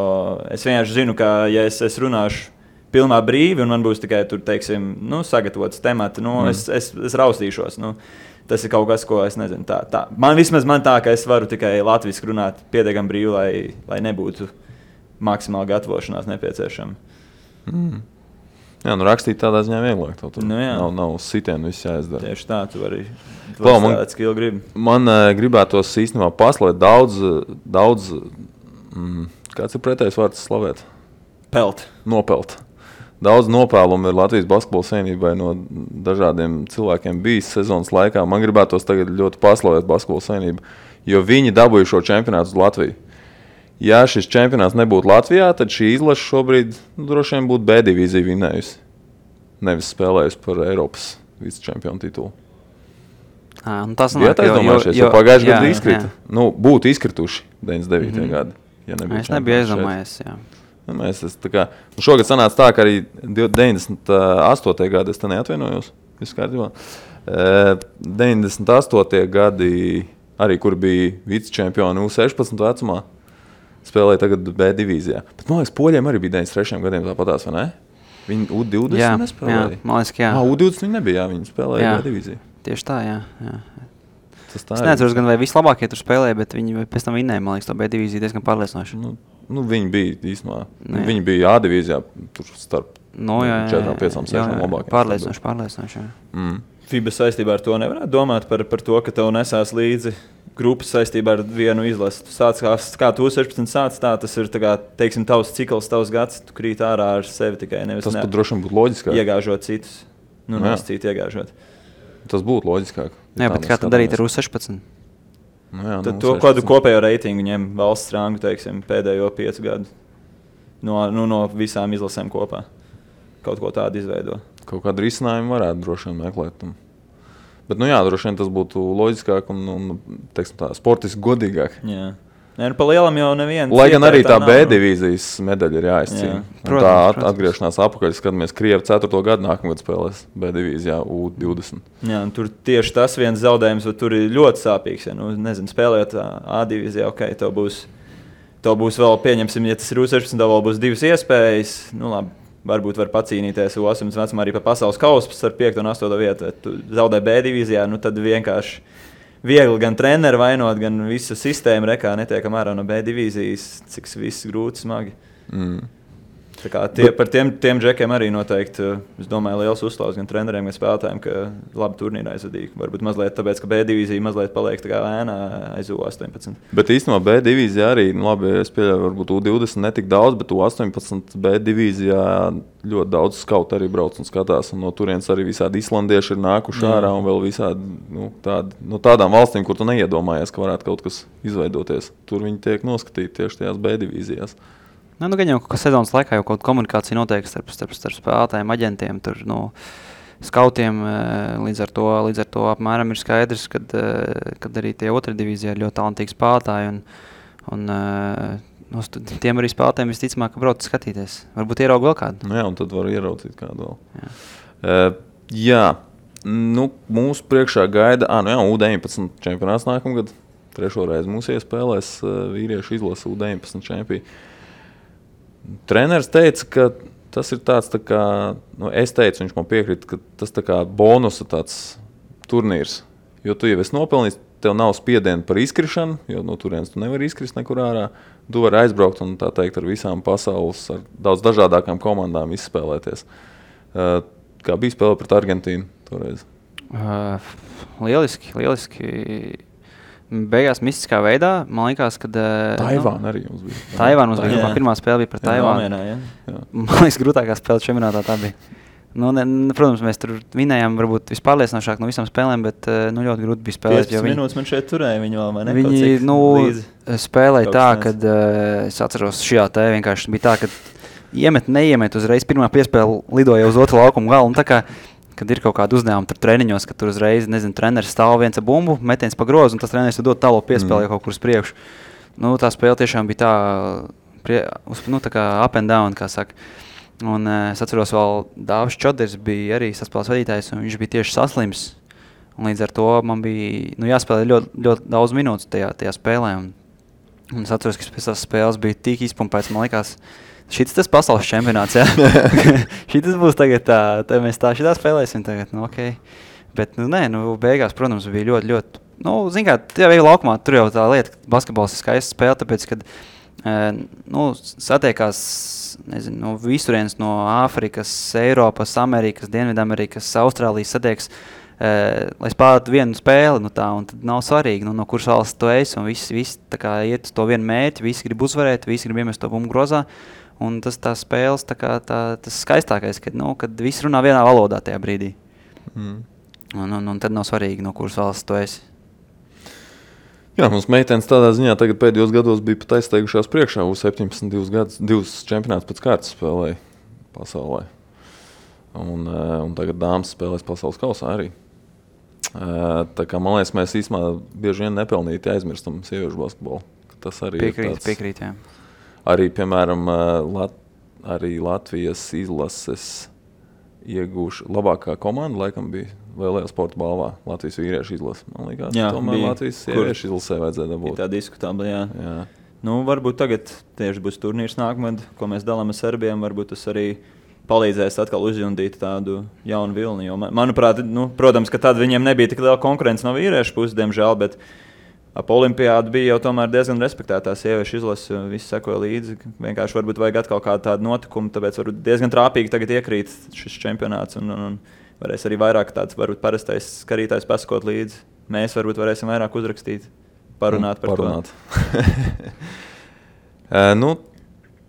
es vienkārši zinu, ka, ja es runāšu pilnā brīvi, un man būs tikai tur, teiksim, sagatavots temati, es raustīšos. Tas ir kaut kas, ko es nezinu. Man tā, ka es varu tikai latviski runāt pietiekami brīvi, lai nebūtu maksimāli gatavošanās nepieciešama. Jā, rakstīt tādā ziņā vieglāk. Tur nav sitienu, viss jāizdara. Tieši tā, tu vari strādāt, skill gribi. Man gribētos īstenībā paslavēt daudz kāds ir pretējs vārds slavēt? Nopelt. Daudz nopēlumu ir Latvijas basketbola savienībai no dažādiem cilvēkiem bijis sezonas laikā. Man gribētos tagad ļoti paslavēt basketbola savienību, jo viņi dabūja šo čempionātu uz Latviju. Ja šis čempionāts nebūtu Latvijā, tad šī izlase šobrīd droši vien būtu B divīzija vinējusi. Nevis spēlējusi par Eiropas vicečempionu titulu. Tas nav aizdomājušies, jo pagājuši gadu izkrita. Būtu izkrituši 99. gadi, ja nebūtu. Es nebiju aizdomājies, jā. Šogad sanāca tā, ka arī 98. gadi, es te neatvainojos, viss kārtībā. 98. gadi, arī kur bija vicečempioni U16 vecumā, spēlēja tagad B divīzijā. Bet, man liekas, poļiem arī bija 93. gadiem tāpatās, vai ne? Viņi U20 nespēlēja? Jā, man liekas, jā. U20 viņi nebija, viņi spēlēja B divīziju. Tieši tā, jā. Es neatceros gan, vai vislabākie tur spēlēja, bet viņi pēc tam vinēja, man liekas, to B divīziju diezgan pārliecinoši. Viņi bija īstenībā. Viņi bija A divīzijā, tur starp 4, 5, 6 labākiem. Pārliecinoši. FIBA saistībā ar to nevarētu domāt par to, ka tev nesās līdzi grupas saistībā ar vienu izlasi. Tu sāc, kā tu 16 sāc, tas ir, teiksim, tavs cikls, tavs gads, tu krīt ārā ar sevi tikai nevis. Tas pat droši vien būtu loģiskāk. Iegāžot citus. Citu iegāžot. Tas būtu loģiskāk. Jā, bet kā tad darīt ar U16? Tad to kādu kopējo reitingu ņem valsts rangu, teiksim, pēdējo 5 gadu no visām izlasēm kopā. Kaut ko tādu izveido. Kaut kādu risinājumu varētu droši vien meklēt. Bet, droši vien tas būtu loģiskāk un teiksim tā, sportiski godīgāk. Jā. Pa lielam jau neviens. Lai gan arī tā B divīzijas medaļa ir jāizcīna. Tā atgriešanās apakaļ, skatāmies, Krievi 4. gadu nākamgad spēlēs B divīzijā U20. Jā, tur tieši tas viens zaudējums, tur ir ļoti sāpīgs. Ja, nezinu, spēlējot A divīzijā, tev būs vēl, pieņemsim, ja tas ir U16, tev vēl būs 2 iespējas. Labi, varbūt var pacīnīties U18 vecumā arī pa pasaules kausu ar 5. un 8. vietu. Tu zaudē B divīzijā, tad vienkārši viegli gan treneri vainot, gan visu sistēmu rekā netiekam ārā no B divīzijas, cik viss grūti, smagi. Tā kā par tiem džekiem arī noteikti, es domāju, liels uzslavs gan treneriem, gan spēlētājiem, ka labi turnīrā aizvadīja. Varbūt mazliet tāpēc, ka B divīzija mazliet paliek tā kā ēnā aiz U18. Bet īstenībā B divīzijā arī, labi, es pieļauju, varbūt U20 netik daudz, bet U18 B divīzijā ļoti daudz skautu arī brauc un skatās. Un no turienes arī visādi islandieši ir nākuši ārā un vēl visādi tādām valstīm, kur tu neiedomājies, ka varētu kaut kas izveidoties. Tur viņi tiek noskatīti tieši tajās B divīzijās. Gan jau ka sezonas laikā jau kaut komunikācija notiek starp spēlētājiem, aģentiem, skautiem. Līdz ar to apmēram ir skaidrs, kad arī tie 2. divīzijā ir ļoti talantīgi spēlētāji. Tiem arī spēlētājiem visticamāk, ka brauc skatīties. Varbūt ierauga vēl kādu. Jā, un tad var ieraudzīt kādu vēl. Jā. Mūsu priekšā gaida U19 čempionāts nākamgad. 3. reizi mūs iespēlēs vīriešu izlase U19 čempioni. Treneris teica, ka tas ir tāds, es teicu, viņš man piekrita, ka tas tā kā bonusa tāds turnīrs. Jo tu jau esi nopelnījis, tev nav spiediena par izkrišanu, jo no turienes tu nevari izkrist nekur ārā. Tu vari aizbraukt un tā teikt ar visām pasaules, ar daudz dažādākām komandām izspēlēties. Kā bija spēle pret Argentīnu toreiz? Lieliski. Beigās mistiskā veidā, man liekas, kad... Taivāna arī mums bija. Taivāna mums bija. Pirmā spēle bija pret Taivānu. Man liekas, grūtākā spēle čempionātā tā bija. Protams, mēs tur vinējām varbūt vispārliecinošāk no visām spēlēm, bet ļoti grūti bija spēlēt. 15 minūtes man šeit turēja, viņi vēl man viņi spēlēja tā, kad es atceros šajā te vienkārši bija tā, ka neiemet uzreiz pirmā piespēle lidoja uz otru laukumu galu. Un tā kā, kad ir kaut kāda uzdevuma tur treniņos, kad tur uzreiz, treneris stāv viens ar bumbu, metiens pa grozu, un tas treneris dod tālo piespēli kaut kur uz priekšu. Nu, tā spēle tiešām bija tā kā up and down, kā saka. Un es atceros vēl Dāvis Čoders bija arī saspēles vadītājs, un viņš bija tieši saslims. Un līdz ar to man bija jāspēlē ļoti daudz minūtes tajā spēlē. Un es atceros, ka pēc tās spēles bija tik izpumpēts, man likās, šitas tas pasaules čempionāts, jā. Šitas būs tagad mēs šitā spēlēsim tagad, okei. Bet, beigās, protams, bija ļoti, zin kā, tajā veidā laukumā, tur jau tā lieta, ka basketbols ir skaista spēle, tāpēc, kad, satiekās, visurienes no Āfrikas, Eiropas, Amerikas, Dienvidamerikas, Austrālijas satiekas, lai spēlētu vienu spēli, un tad nav svarīgi, no kuras valsts tu esi, un visi tā kā iet uz to vienu mērķi, visi grib uzvarēt, visi grib iemest to bumbu grozā, un tas tās spēles, tas skaistākais, kad visi runā vienā valodā tajā brīdī. Un tad nav svarīgi, no kuras valsts tu esi. Jā, mums meitenes tādā ziņā tagad pēdējos gados bija pat aizsteigušās priekšā, U17 divus čempionātus pēc kārtas spēlēja pasaulē. Un tagad dāmas spēlēs pasaules kausā arī. Tā kā, man liekas, mēs īstenībā bieži vien nepelnīti aizmirstam sieviešu basketbolu. Tas arī Piekrīt, jā. Arī, piemēram, arī Latvijas izlases iegūši labākā komanda, laikam bija Lielajā sporta balvā Latvijas vīriešu izlase. Man liekas, tomēr Latvijas sieviešu izlasē vajadzēja dabūt. Tā diskutabla, jā. Varbūt tagad tieši būs turnīrs nākamad, ko mēs dalām ar Serbiem, varbūt tas arī palīdzēs atkal uzjundīt tādu jaunu vilni. Jo, manuprāt, protams, ka tad viņiem nebija tik liela konkurence no vīriešu puses, diemžēl, bet ap olimpiādu bija jau tomēr diezgan respektētā sieviešu izlase, visi sekoja līdzi. Vienkārši varbūt vajag atkal kādu tādu notikumu, tāpēc varbūt diezgan trāpīgi tagad iekrīt šis čempionāts un varēs arī vairāk tāds varbūt parastais skatītājs pasakot līdzi. Mēs varbūt varēsim vairāk uzrakstīt, parunāt par to.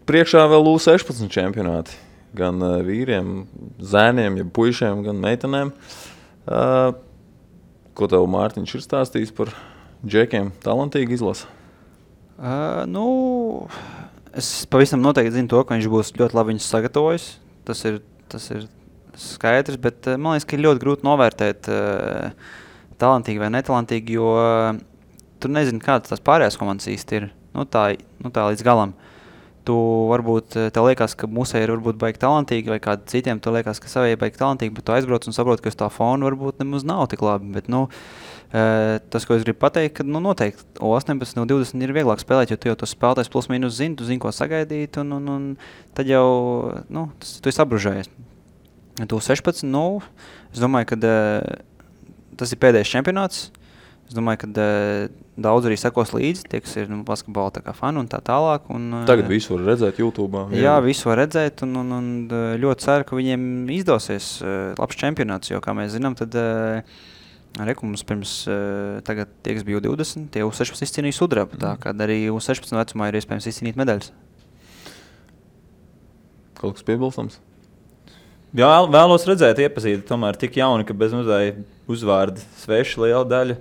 Priekšā vēl U16 čempionāti. Gan vīriem, zēniem, ja puišiem, gan meitenēm. Ko tev Mārtiņš ir stāstījis par džekiem? Talantīgi izlasa? Es pavisam noteikti zinu to, ka viņš būs ļoti labi viņus sagatavojis. Tas ir skaidrs, bet man liekas, ka ir ļoti grūti novērtēt talantīgi vai netalantīgi, jo tu nezini, kādas tās pārējās komandas īsti ir. Tā līdz galam. Tu varbūt, tev liekas, ka musē ir varbūt baigi talantīgi, vai kādiem citiem tu liekas, ka savai baigi talantīgi, bet tu aizbrauc un saproti, ka uz tā fona varbūt nemaz nav tik labi. Bet, tas, ko es gribu pateikt, ka noteikti O18 no 20 ir vieglāk spēlēt, jo tu jau tos spēlētājs plus mīnus zini, tu zini, ko sagaidīt, un tad jau, tu esi apbružējies. Tu 16, es domāju, ka tas ir pēdējais čempionāts. Es domāju, ka daudz arī sekos līdzi, tie, kas ir basketbola tā kā fani un tā tālāk. Tagad visu var redzēt YouTube. Jā, visu var redzēt un ļoti ceru, ka viņiem izdosies labs čempionāts, jo, kā mēs zinām, tad mums pirms tagad tie, kas bija U20, tie U16 izcīnīja sudrabu, tā kā arī U16 vecumā ir iespējams izcīnīt medaļas. Kaut kas piebilstams? Jā, vēlos redzēt, iepazīt, tomēr tik jauni, ka bez mazai uzvārdi sveši liela daļa.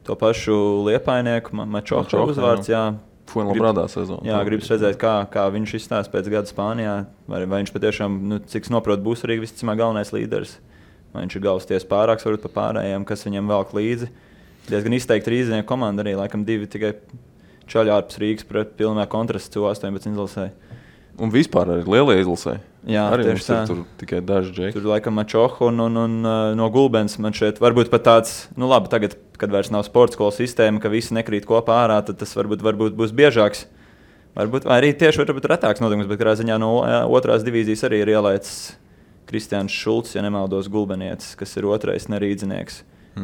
To pašu Liepainieku, Mačoho uzvārds, jā. Fuenlabrādā sezonu. Jā, gribas redzēt, kā viņš izstās pēc gada Spānijā. Vai viņš patiešām, cik noprot, būs arī visticamāk galvenais līderis. Vai viņš ir galvas ties pārāks, varbūt pa pārējiem, kas viņam velk līdzi. Diezgan izteikti rīznieku komanda arī, laikam 2 tikai čaļi ārpus Rīgas pret pilnā kontrastu U18 izlasē. Un vispār arī lielie izlasē. Jā, arī tieši tā. Tur tikai daži džeki. Tur laikam Mačoho un no Gulbens man šeit varbūt pat tāds, labi, tagad, kad vairs nav sporta skolas sistēma, ka visi nekrīt kopā ārā, tad tas varbūt būs biežāks. Varbūt arī tieši varbūt retāks notikums, bet kādā ziņā no otrās divīzijas arī ir ielaicis Kristiāns Šulcs, ja nemaldos Gulbenietis, kas ir otrais nerīdzinieks,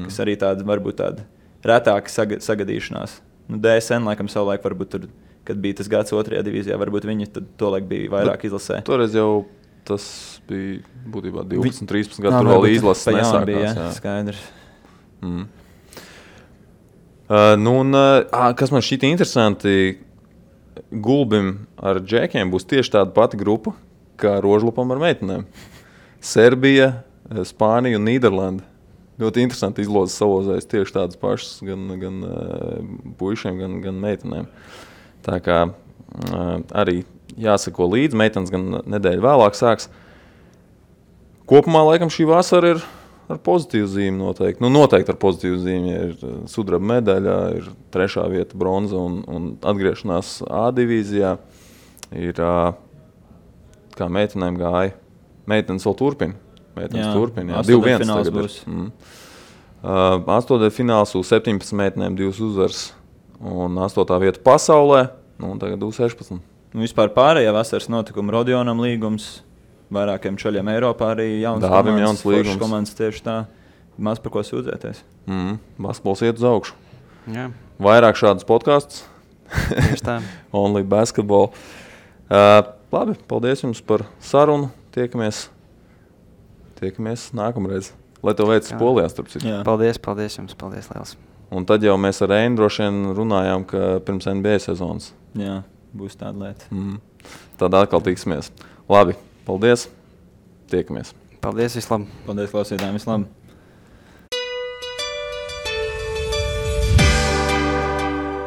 kas arī varbūt tāda retāka sagadīšanās. DSN laikam savulaik varbūt tur, kad bija tas gads otrajā divīzijā, varbūt viņi tad tolaik bija vairāk izlasē. Toreiz jau tas bija būtībā 12-13 gadu, tur vēl izlases nesākās. Bija, jā, skaidrs. Kas man šķita interesanti, Gulbim ar džekiem būs tieši tāda pati grupa, kā Rožlupam ar meitenēm. Serbija, Spānija un Nīderlanda. Ļoti interesanti izlozes savozēs tieši tādas pašas gan puišiem, gan meitenēm. Tā kā arī jāsako līdzi. Meitenes gan nedēļu vēlāk sāks. Kopumā, laikam, šī vasara ir ar pozitīvu zīmi noteikti. Nu, noteikti ar pozitīvu zīmi. Ir sudraba medaļa, ir 3. vieta bronza un atgriešanās A divīzijā. Ir, kā meitenēm gāja. Meitenes vēl turpina. Meitenes turpina, jā. 2-1 tagad būs. 8. fināls U17 meitenēm 2 uzvaras un 8. vieta pasaulē, nu, un tagad U16. Vispār pārējā vasaras notikuma Rodionam līgums, vairākiem čaļiem Eiropā arī jauns komandas tieši tā. Maz par ko sūdzēties. Basketbols iet uz augšu. Jā. Vairāk šādus podkastus. Tieši tā. Only basketball. Labi, paldies jums par sarunu. Tiekamies nākamreiz. Lai tev veicas Polijā, starp citu. Paldies jums, paldies liels. Un tad jau mēs ar Reinu droši vien runājām, ka pirms NBA sezonas. Jā, būs tāda lieta. Tad atkal tiksimies. Labi, paldies. Tiekamies. Paldies, vislabāk. Paldies klausītājiem, vislabāk.